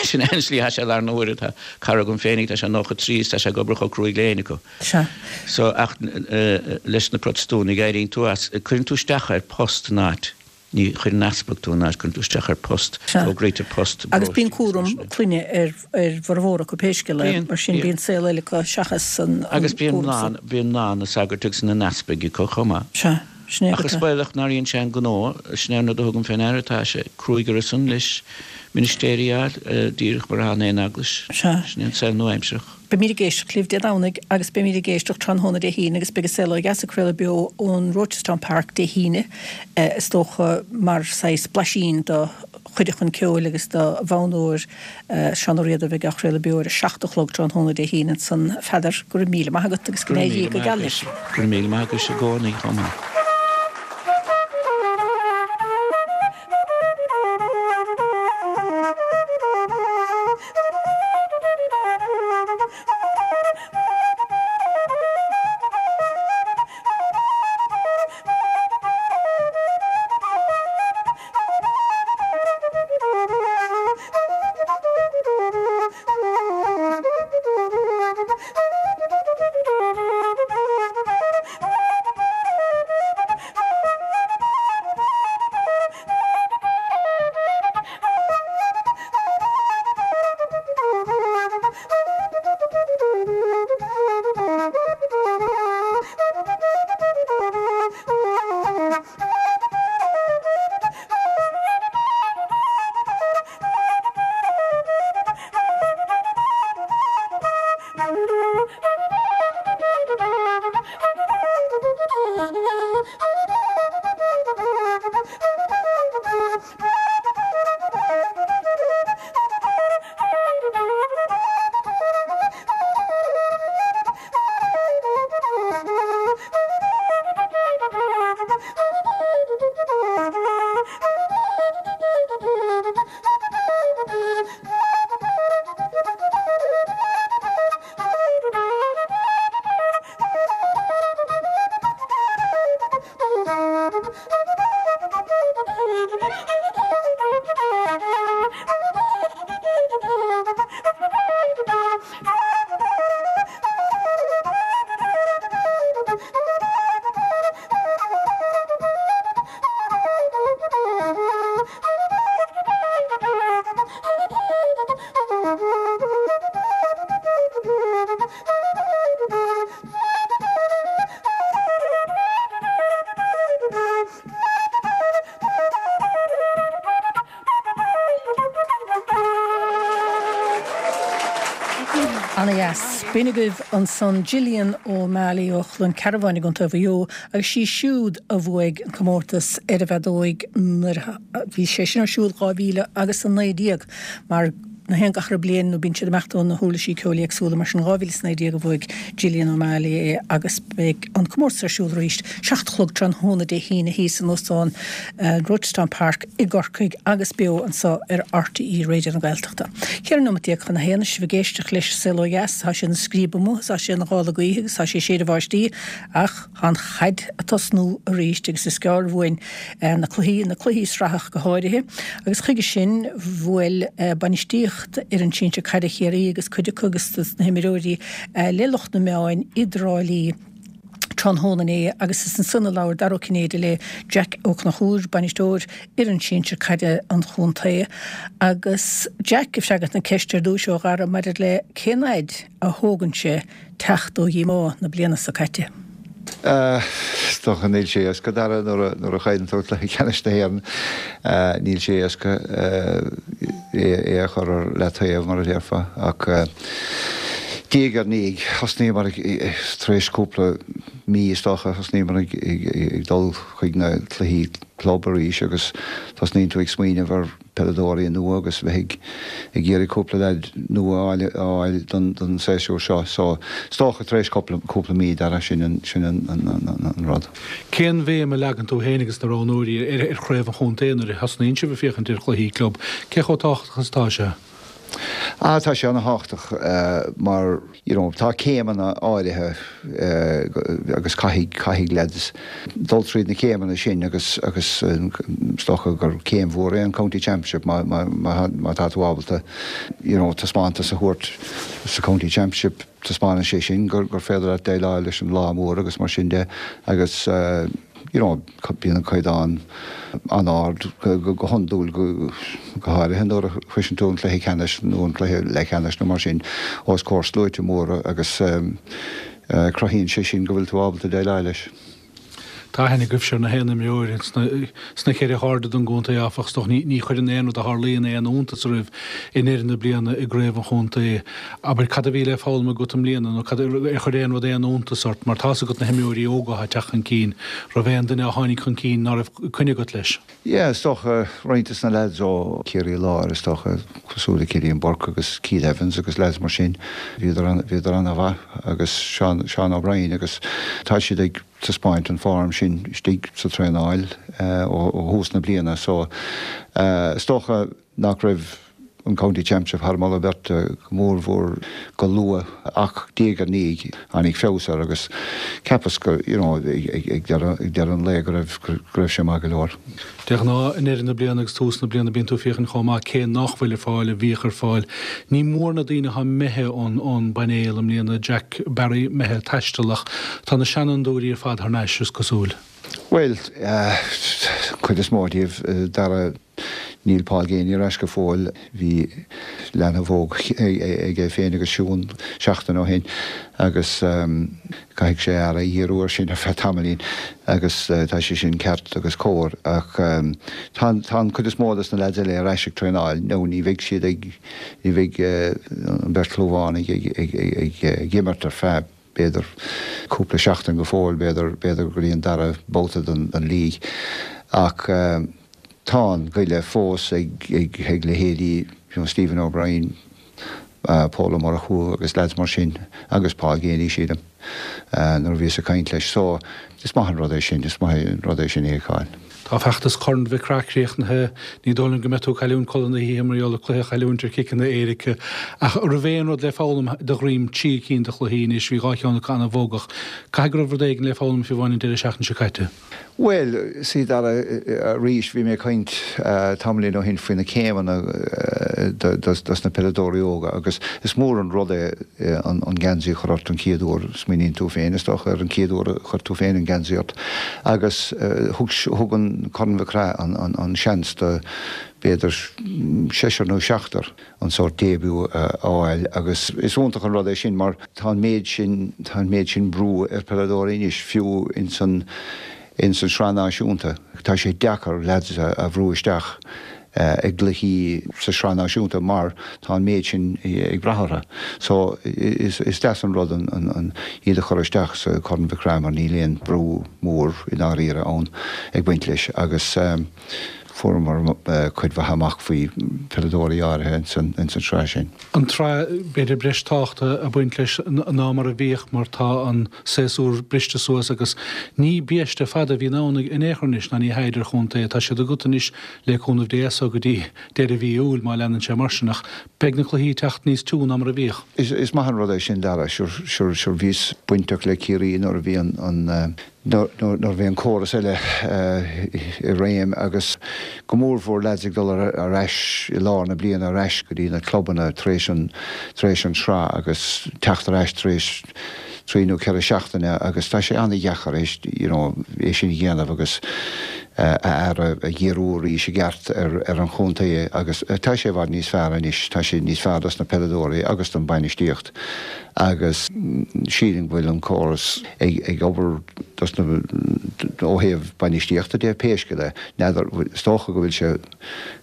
Sin é an slí atá sé i láthair na huaire. Tá cara agam féinig, tá sé 93 is tá sé ag obair chomh cruaidh le éinne acu. Sea. So, ach leis na Protastúnaigh éiríonn tú as, cuireann tú isteach ar post in áit. Ní chuireann easpag tú in áit, cuireann tú isteach ar post, fógraítear post i Agus bíonn cúram clainne ar ar bhformhór acu pé scéal é, mar sin bíonn saol eile acu seachas an cúram san. Agus bíonn mná, bíonn mná ina sagairt agus ina n-easpaig acu chomh maith. Sea, sin é Ach is baolach nár dhein sé an gnó, sin é an rud a thugaim fé ndeara, tá sé cruaidh orthusan leis ministéirí a fháil, díreach mar atá in aon eaglais. Sea. Sin é an saol nua-aimsearach. Beimid ag éisteacht libh Dé Domhnaigh agus beimid ag éisteacht tráthnóna Dé hAoine agus beidh An Saol Ó Dheas ag craoladh beo ón Rochestown Park Dé hAoine is dócha mar saghas blaisín do chuid a chun ceoil agus do fhoghnóir Seán Ó Riada a bheidh á chraoladh beo ar a 7 a chlog tráthnóna Dé hAoine ansan. A Pheadair, go raibh míle maith agat agus go Go raibh míle maith agat. Go raibh míle maith agat i gcónaí chomh maith. Ana-dheas. B'in agaibh ansan Gillian O'Malley ó Chluain Cearbháin i gContae Mhaigh Eo agus sí siúd a bhuaigh an comórtas ar an bhfeadóig nuair a bhí sé sin ar siúl 2019 mar na haon gach re bliain nó bíonn siad ag imeacht ó na huirlisí ceoil éagsúla mar sin 2019 a bhuaigh Gillian O'Malley é agus beidh an comórtas ar siúl arís 7 a chlog tráthnóna Dé hAoine thíos in Óstán Rochestown Park i gCorcaigh agus beo anseo ar RTÉ Raidió na Gaeltachta. 14 nóimeat chun a haon sibh ag éisteacht leis An Saol Ó Dheas. Tá sé ina scríob amuigh, tá sé ina ghála gaoithe agus tá sé ag séideadh báistí ach Tá an chaid ag tosnú arís agus is gearr uainn na cluichí, na cluichí sraithe ach go háirithe, agus chuige sin bhuail bainistíocht fhoireann sinsir caide Chiarraí agus cuid acu agus dos na himreoirí le lucht na meáin i dTrá Lí tráthnóna inné agus is ansan a labhair Dara Ó Cinnéide le Jack Ó Conchúir, bainisteoir fhoireann sinsir caide an chontae agus Jack ag freagairt na ceiste ar dtúis ó Dhara maidir le cén fhaid a thógann sé teacht ó dhíomá na bliana seo caite. Is dócha níl sé éasca, Dara, nuair a chailleann tú cluiche ceannais na hÉireann, níl sé éasca é a chur ar leataobh, mar a déarfá. Ach diaidh ar ndiaidh, thosnaíomar tar éis cúpla mí, is dócha, thosnaíomar ag dul chuig na cluichí club arís agus tosnaíonn tú ag smaoineamh ar peileadóirí nua agus bheith ag iarraidh cúpla leaid nua a fháil don séasúr seo. So, is dócha tar éis cúpla mí, Dara, sin an rud. Cén bhéim a leagann tú féin agus na roghnóirí ar chraobh an chontae nuair a thosnaíonn sibh ag féachaint ar chluichí club? Cé chomh tábhachtach is atá sé? Ah, tá sé ana-thábhachtach mar, you know, tá céimeanna áirithe agus caithfidh, caithfidh leaids dul tríd na céimeanna sin agus, agus is dócha gur céim mhór é an County Championship má, má, má, má tá tú ábalta, you know, taispeántas a thabhairt sa County Championship, taispeánann sé sin gur, gur féidir leat déileáil leis an lá mór agus mar sin de agus, you know, bíonn an caighdeán an-ard go hiondúil, go háirithe nuair a shroiseann tú an cluiche ceannais nó an cluiche leathcheannais nó mar sin os comhair sluaite móra agus cruthaíonn sé sin go bhfuil tú ábalta déileáil leis. Tá aithne agaibhse ar na haon imreoir sna ceithre hairde den gcontae, áfach. Is dócha ní chuireann aon rud a tharlaíonn aon iontas oraibh i ndeireadh na bliana i gcraobh an chontae. Abair, cad a bhí le foghlaim agat i mbliana nó cad, ar chuir aon rud aon iontas ort? Mar tá's agat na himreoirí óga atá ag teacht chun cinn, raibh aon duine a tháinig chun cinn ná raibh coinne agat leis? Yeah, is dócha, roinnt des na lads ó Chiarraí Láir, is dócha, cosúil le Cillian Burke agus Keith Evans agus lads mar sin, bhíodar, bhíodar ana-mhaith agus Seán, Seán O'Brien agus tá siad ag taispeáint an form sin istigh sa traenáil ó thús na bliana so is dócha nach raibh an County Championship thar moladh beirte go mór mhór go luath ach diaidh ar ndiaidh tháinig feabhas air agus cheapas go you know ag deireadh an lae go raibh go raibh sé maith go leor. De ghnáth i ndeireadh na bliana agus tús na bliana bíonn tú ag féachaint chomh maith cé nach bhfuil ar fáil a bhíodh ar fáil. Ní mór na daoine atá imithe ón ón bpainéal i mbliana, Jack Barry imithe ag taisteal ach tá na seanfhondúirí ar fad thar n-ais is cosúil. Bhuel, cuid is mó díobh, Dara, níl Paul Geaney ar ais go fóill. Bhí leanbh óg aige féin agus Siún seachtain ó shin agus caithfidh sé a aire a dhíriú air sin ar feadh tamaillín agus tá sé sin ceart agus cóir ach tá an cuid is mó dos na leaids eile ar ais ag traenáil nó ní bheidh siad ag, ní bheidh an bheirt Chlúmhánaigh ag imirt ar feadh b'fhéidir cúpla seachtain go fóill, b'fhéidir, b'fhéidir go dtí an dara babhta den, den league. Ach tá an goile fós ag, ag, ag leithéidí you know Stephen O'Brien, Pól Ó Murchú agus leaids mar sin agus Paul Geaney sílim nuair a bhíos ag caint leis. So is maith an rud é sin, is maith an rud é sin a fheiceáil. Tá feachtas Chorn Mhic Craith críochnaithe. Ní dóigh liom go mbeidh tú ag cailliúint codladh na hoíche mar gheall ar cluiche a chailliúint ar chiceanna éirice. Ach an raibh aon rud le foghlaim de dhroim trí cinn de chluichí anois, bhí dhá cheann acu an-bhogach. Caithfidh go raibh rud éigin le foghlaim fiú amháin an deireadh seachtaine seo caite. Bhuel, sea Dara, arís, bhí mé ag caint tamaillín ó shin faoi na céimeanna dos na peileadóirí óga agus is mór an rud é an geansaí a chur ort an chéad uair, smaoiníonn tú féin, is dócha, ar an chéad uair a chuir tú féin an geansaí ort agus thug an Corn Mhic Craith an seans do b'fhéidir seisear nó seachtar an sórt début a fháil agus is iontach an rud é sin mar tá an méid sin, tá an méid sin brú ar pheileadóirí anois, fiú ins an ins an tSraith Náisiúnta. Tá sé deacair leaids a bhrú isteach i gcluichí sa tSraith Náisiúnta mar tá an méid sin ag brath orthu. So is deas an rud an iad a chur isteach sa Chorn Mhic Craith mar níl aon brú mór i ndáiríre ann ag baint leis agus fuaireamar cuid mhaith amach faoi pheileadóirí áirithe ins an tsraith sin. An tsraith, b'fhéidir breis tábhachta ag baint leis ná mar a bhíodh mar tá an séasúr briste suas agus ní biaiste fada a bhíonn ann in aon chor anois ná ní hea idir chontae. Tá siad agat anois le cúnamh Dé as so go dtí deireadh mhí Iúil má leanann sé mar sin ach beidh na cluichí ag teacht níos tiú ná mar a bhíodh. Is maith an rud é sin Dara, sure sure bhíos bainteach le Ciarraí nuair a bhí an nuair a bhí an córas eile i réim agus go mórmhór leaids ag dul ar ais i lár na bliana ar ais go dtí na clubanna tar éis an tar éis an tsraith agus teacht ar ais tar éis trí nó ceithre seachtaine agus tá sé an-dheacair é you know é sin a dhéanamh agus a aire a dhíriú arís i gceart ar ar an chontae agus tá sé i bhfad níos fearr anois tá sé níos fearr dos na peileadóirí agus don bainistíocht. agus sílim go bhfuil an córas ag obair dos na, ó thaobh bainistíochta de, pé scéal é. N'fheadar, is dócha go bhfuil sé,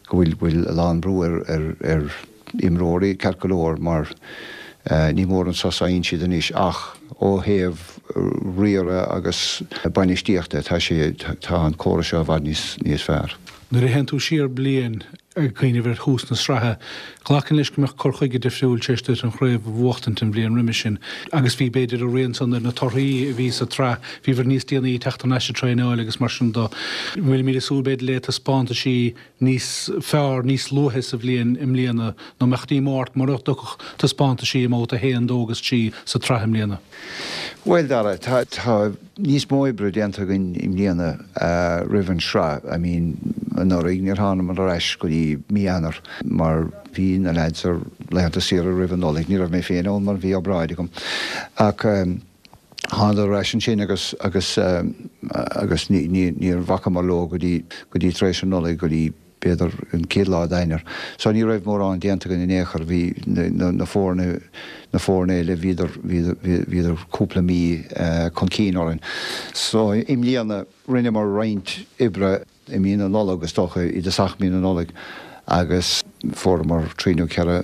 go bhfuil, bhfuil a lán brú ar, ar, ar imreoirí ceart go leor mar ní mór an sos a fhaigheann siad anois ach ó thaobh riaradh agus bainistíochta tá sé, tá an córas seo i bhfad níos, níos fearr. Nuair a théann tú siar bliain. Ag cuimhneamh ar thús na sraithe, ghlacfainn leis go mbeadh cur chuige difriúil tar éis duit an chraobh a bhuachtaint an bhliain roimis sin agus bhí, b'fhéidir, a rian san ar na torthaí a bhí sa tsraith. Bhíobhair níos déanaí ag teacht thar n-ais ag traenáil agus mar sin de. Bhfuilimid ag súil, b'fhéidir, le taispeántaisí níos fearr níos luaithe sa bhliain i mbliana nó mbeadh díomá ort mura dtiocfadh taispeántaisí i mbabhta 1, 2 agus 3 sa tsraith i mbliana? Bhuel, Dara, tá, tá níos mó oibre déanta againn i mbliana roimh an sraith. I mean, anuraidh níor thánamar ar ais go dtí mí Eanáir mar bhí na leaids ar laethanta saoire roimh an Nollaig. Ní raibh mé féin ann mar bhí obráid agam. Ach thánadar ar ais ansin agus, agus, agus ní, ní, níor bhacamar leo go dtí, go dtí tar éis an Nollaig, go dtí, b'fhéidir an chéad lá d'Eanáir. So ní raibh mórán déanta againn in aon chor. Bhí na foirne, na foirne eile, bhíodar, bhíodar cúpla mí chun cinn orainn. So i mbliana rinneamar roinnt oibre i mí na Nollag, is dócha, i dtosach mí na Nollag agus fuaireamar trí nó ceithre,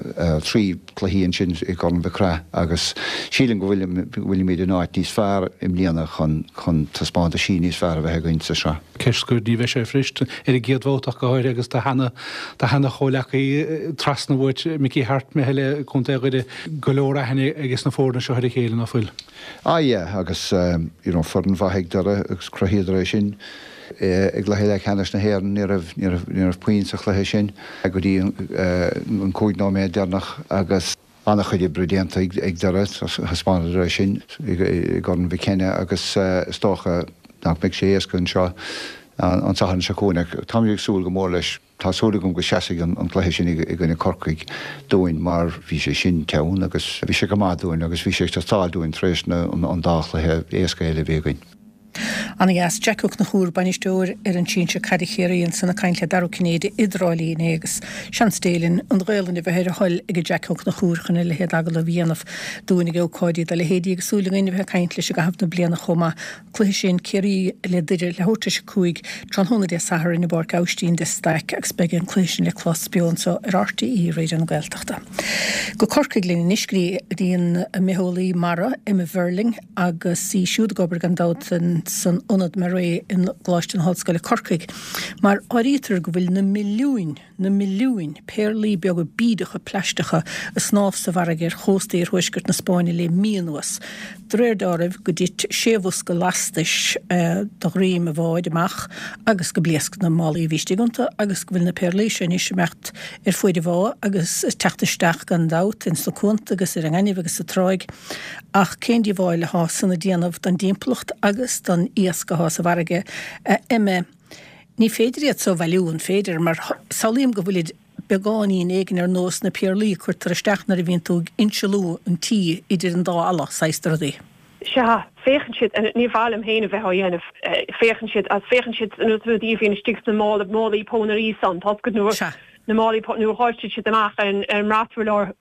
trí cluichí ansin i gCorn Mhic Craith agus sílim go bhfuilimid in áit níos fearr i mbliana chun, chun taispeántaisí níos fearr a bheith againn sa sraith. Ceist scoir, ní bheidh sé fuirist, ar an gcéad bhabhta ach go háirithe agus do sheana, do sheana chomhleacaí trasna uait, Mickey Harte, imithe le Contae Dhoire, go leor aithne ages na foirne seo ar a chéile, ná fuil? Ah yeah, agus you know foireann mhaith ag Doire agus chruthaíodar é sin i gcluiche leathcheannais na hÉireann, ní raibh, ní raibh, ní raibh puinn sa chluiche sin go dtí an 5 nóiméad deireanach agus an-chuid oibre déanta ag Doire, thaispeánadar é sin i gCorn Mhic Cionnaith agus is dócha nach mbeidh sé éasca anseo an Satharn seo chugainn ach táimid ag súil go mór leis. Tá súil agam go seasfaidh an cluiche sin i gcoinne Corcaigh dúinn mar bhí sé sin teann agus bhí sé go maith dúinn agus bhí sé ag teastáil dúinn tar éis an dá chluiche éasca eile a bhí againn. Ana dheas. Jack Ó Conchúir, bainisteoir fhoireann sinsir caide Chiarraí ansan ag caint le Dara Ó Cinnéide i dTrá Lí inné agus seans Dé linn an Ghaolainn a bheith ar a thoil ag Jack Ó Conchúir chun a leithéid agallamh a dhéanamh dúinn ag ócáidí dá leithéidí agus súil againn a bheith ag caint leis i gcaitheamh na bliana chomh maith. Cluiche sin Ciarraí le Doire leathuair tar éis a 5 tráthnóna Dé Sathairn i bPáirc Aibhistín de Staic agus beidh an cluiche sin le clos beo anseo ar RTÉ Raidió na Gaeltachta. Go Corcaigh linn anois go dtí an mbitheolaí mara Emma Verling agus í siúd ag obair gan dabht san Ionad MaREI i gColáiste na hOllscoile Corcaigh mar áirítear go bhfuil na milliúin na milliúin péarlaí beaga bídeacha plaisteacha ag snámh sa bhfarraige ar chósta iarthuaisceart na Spáinne le mí anuas. De réir dealraimh go dtit sé bhosca lastais de dhroim an bháid amach agus go bpléasc na málaí a bhí istigh iontu agus go bhfuil na péarlaí seo anois ag imeacht ar fuaid an bhá agus ag teacht isteach gan dabht ins na cuanta agus ar an ngaineamh agus sa tráigh. Ach cén díobháil athá san ag déanamh don dtimpeallacht agus don iasc athá sa bhfarraige, a Emma? Ní féidir iad so a bhailiú, an féidir? Mar samhlaím go bhfuilid beagáinín éigin ar nós na péarlaí a cuirtear isteach nuair a bhíonn tú ag insealú an tí idir an dá fhalla, saghas de rudaí. Sea, féachann siad, ní mhaith liom féin a bheith á dhéanamh, féachann siad, agus féachann siad na rudaí a bhíonn istigh sna mála, málaí pónairí san, tá a fhios agat, nuair, Sea. na málaí pónairí, nuair a dháiltear siad amach ar an, ar an mbraturlár,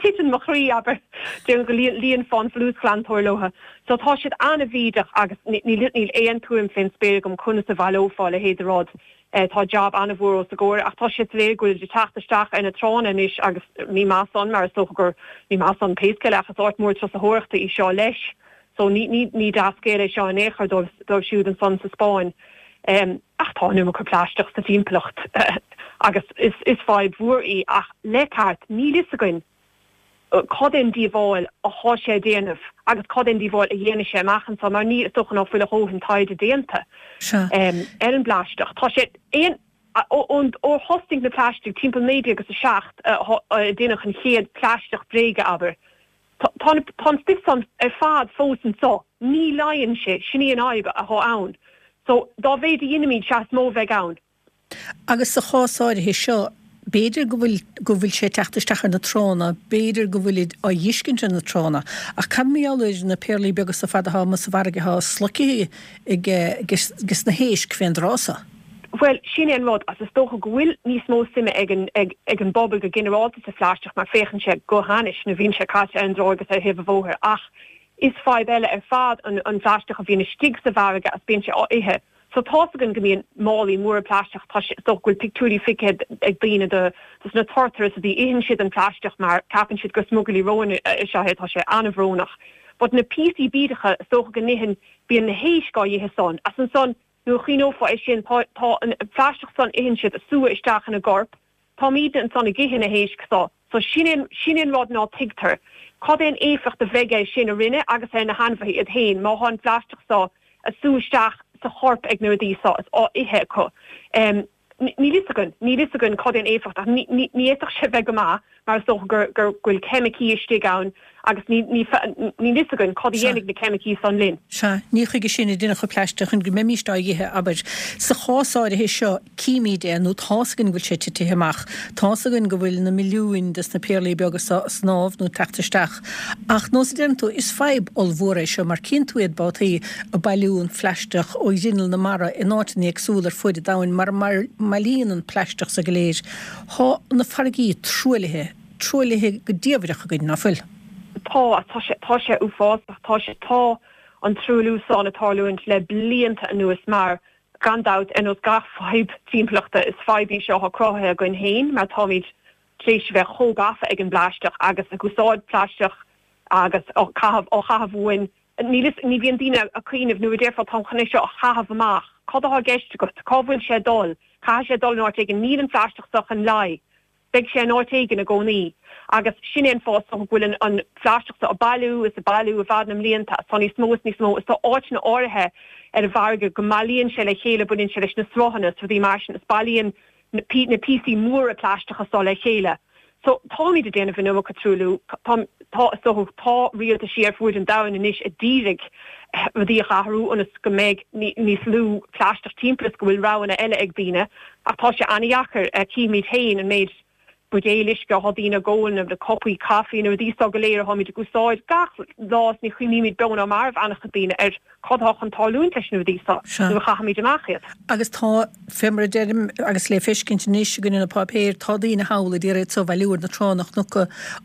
titeann mo chroí, abair, déarfainn go líon, líonfá an folúsghlantóir leo. So tá siad an-bhídeach agus níl aon tuairim fén spéir agam conas a bhaileofá a leithéid de rud. Tá jab an-mhór os a gcomhair ach tá sé soiléir go bhfuilid ag teacht isteach ar na tránna anois agus ní maith san mar is dócha gur, ní maith san pé scéal é ach is áit mhór turasóireachta í seo leis. So ní, ní, ní dea-scéal é seo in aon chor dóibh, dóibh siúd ansan sa Spáinn. Ach tá an iomarca plaisteach sa timpeallacht agus is, is fadhb mhór í ach le ceart níl fhios againn cad é an díobháil athá sé a déanamh agus cad é an díobháil a dhéanfaidh sé amach anso mar ní, is dócha ná fuil a dhóthain taighde déanta ar an bplaisteach. Tá sé aon, ó thosnaigh na plaistigh timpeall 19 agus 7 a déanadh an chéad plaisteach bréige, abair, tá an stuif san ar fad fós anso, ní leáigheann sé, sin í an fhadhb athá ann. So, dá mhéid a dheinimíd, sea is mó a bheidh ann. Agus sa chás áirithe seo, b'fhéidir go bhfuil, go bhfuil sé ag teacht isteach ar na tránna, b'fhéidir go bhfuilid á dh'fheiscint ar na tránna, ach cad mar gheall ar na péarlaí beaga so fad athá amuigh sa bhfarraige athá sloicthe ag, ages na héisc fén dtráth so? Bhuel, sin é an rud, agus is dócha go bhfuil níos mó suime ag an, ag, ag an bpobal go ginearálta sa phlaisteach mar féachann sé go hainnis nuair a bhíonn sé caite ar an dtráigh agus ar thaobh an bhóthair ach is fadhb eile ar fad an, an phlaisteach a bhíonn istigh sa bhfarraige agus bíonn sé á ithe. So tá's againn go mbíonn málaí móra plaisteach, tá sé, is dócha go bhfuil pictiúirí feicthe ag daoine de dos na turtair is rudaí, itheann siad an plaisteach mar ceapann siad gur smugairlí róin is ea é, tá sé an-bhrónach. But na píosaí bídeacha, is dócha go n-itheann, bíonn na héisc á dh'ithe san, as ansan nuair a chuimhneofá é sin, tá, tá an plaisteach san itheann siad, ag sú isteach ina gcorp. Táimídne ansan ag ithe na héisc so. So sin é, sin é an rud ná tuigtear. Cad é an éifeacht a bheidh air sin orainne agus ar na hainmhithe iad féin má thá an phlaisteach so a sú isteach sa chorp ag na rudaí so is á ithe acu. Níl fhios againn, níl fhios againn cad é an éifeacht ach ní, ní, ní fhéadfadh sé bheith go maith mar is dócha gur, gur, go bhfuil ceimicí istigh ann agus ní, ní, níl fhios againn cad a dhéanfaidh na ceimicí san linn. Sea, ní chuige sin a deineadh an plaisteach, chun go mbeimíst á dh'ithe, abair. Sa chás áirithe seo, címíd é, nó tá's againn go bhfuil sé titithe amach, tá's againn go bhfuil na milliúin des na péarlaí beaga so a' snámh nó ag teacht isteach. Ach, nós a deireann tú, is fadhb ollmhór é seo, mar cíonn tú iad babhtaí a' bailiú an phlaisteach ó ghrinneall na mara in áiteanna éagsúla ar fuaid an domhain mar a mbailíonn an plaisteach so go léir. Thá na farraigí truaillithe, truaillithe go diamhaireach againn, ná fuil? Tá, tá sé, tá sé uafásach, tá sé, tá an truailliú san ag tarlúint le blianta anuas mar Gan dabht, ar nós gach fadhb timpeallachta, is fadhb í seo atá cruthaithe againn féin mar táimid tar éis a bheith chomh gafa ag an bplaisteach agus ag úsáid plaisteach agus á chaitheamh, á chaitheamh uainn. Níl fhios, ní bhíonn daoine ag cuimhneamh nuair a déarfá táim chun é seo a chaitheamh amach, cad atá i gceist agat? Cá bhfuil sé ag dul? Caithfidh sé dul in áit éigin. Níl an plaisteach seo chun leí. Beidh sé in áit éigin i gcónaí agus sin é an fáth is dócha go bhfuil an phlaisteach seo ag bailiú is ag bailiú i bhfad na mblianta is tá níos mó is níos mó is tá áiteanna áirithe ar an bhfarraige go mbailíonn sé le chéile, baineann sé leis na sruthanna is rudaí mar sin is bailíonn na píosaí móra plaisteacha seo le chéile. So táimid ag déanamh an iomarca truailliú, tá, tá, is dócha, tá rialtaisí ar fuaid an domhain anois a d'iarraidh rudaí a athrú ionas go mbeidh níos lú plaisteach timpeall is go bhfuil roghanna eile ag daoine. Ach tá sé an-dheacair. Címid féin an méid buidéil uisce atá daoine ag ól, na cupaí caife, na rudaí seo go léir atáimid ag úsáid gach lá is ní chuimhnímid beo ná marbh an-chuid daoine ar cad atá chun tarlúint leis na rudaí seo nuair a chaithimid amach iad. Agus tá, fé mar a deirim, agus le feiscint anois againn ina páipéir, tá daoine thall a d'iarraidh iad so a bhailiú ar na tránna. Chonac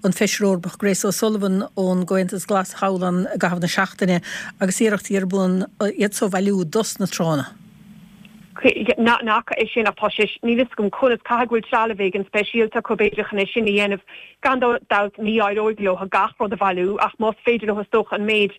an Feisire Eorpach Grace O'Sullivan ón gComhaontas Glas thall ann i gcaitheamh na seachtaine agus iarrachtaí ar bun iad so a bhailiú dos na tránna. N'fhaca é sin ach tá sé, níl fhios agam conas, caithfidh go bhfuil trealamh éigin speisialta acu b'fhéidir chun é sin a dhéanamh. Gan dabht ní éireoidh leo gach rud a bhailiú ach más féidir leo is dócha an méid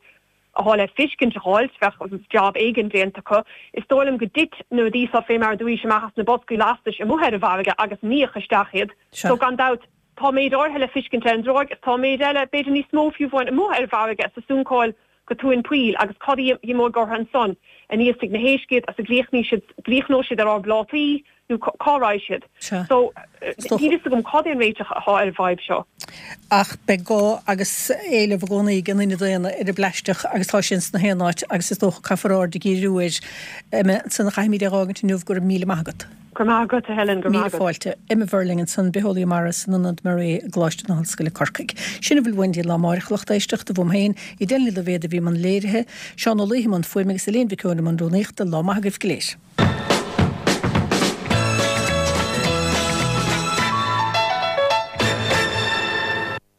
atá le fiscint a dh'fháilt, bheadh jab éigin déanta acu. Is dóigh liom go dtit na rudaí seo fé mar a dúraís amach as na boscaí lastais amuigh ar an bhfarraige agus níodh isteach iad. So gan dabht tá méid áirithe le fiscint ar an dtráigh is tá méid eile, b'fhéidir níos mó fiú amháin, amuigh ar an bhfarraige is ag suncáil go tóin poill agus cad a imeoidh orthu ansan? Aníos ag na héisc iad agus a gcríochnóidh siad ar ár bplátaí nó cá raghaidh siad? So, níl fhios agam cad é an réiteach atá ar an bhfadhb seo. Ach beidh gá agus éileamh i gcónaí ag an duine daonna ar an bplaisteach agus tá sé ins na haon áit agus is dócha caithfear aird a dhíriú air. Emma, ansan a chaithfimid é a dh'fhágaint inniu, go raibh míle maith agat. Go raibh maith agat, a Helen, go raibh maith agat. Míle fáilte. Emma Verling ansan, bitheolaí mara san Ionad MARE i gColáiste na hOllscoile Corcaigh. Sin a bhfuil uainn go dtí lá amáireach, a lucht éisteachta, uaim féin, Edel Ní Loibhéad a bhí i mbun léirithe, Seán Ó Laoithe i mbun fuaime agus Elaine Mhic Eoin i mbun rúnaíochta. Lá maith agaibh go léir.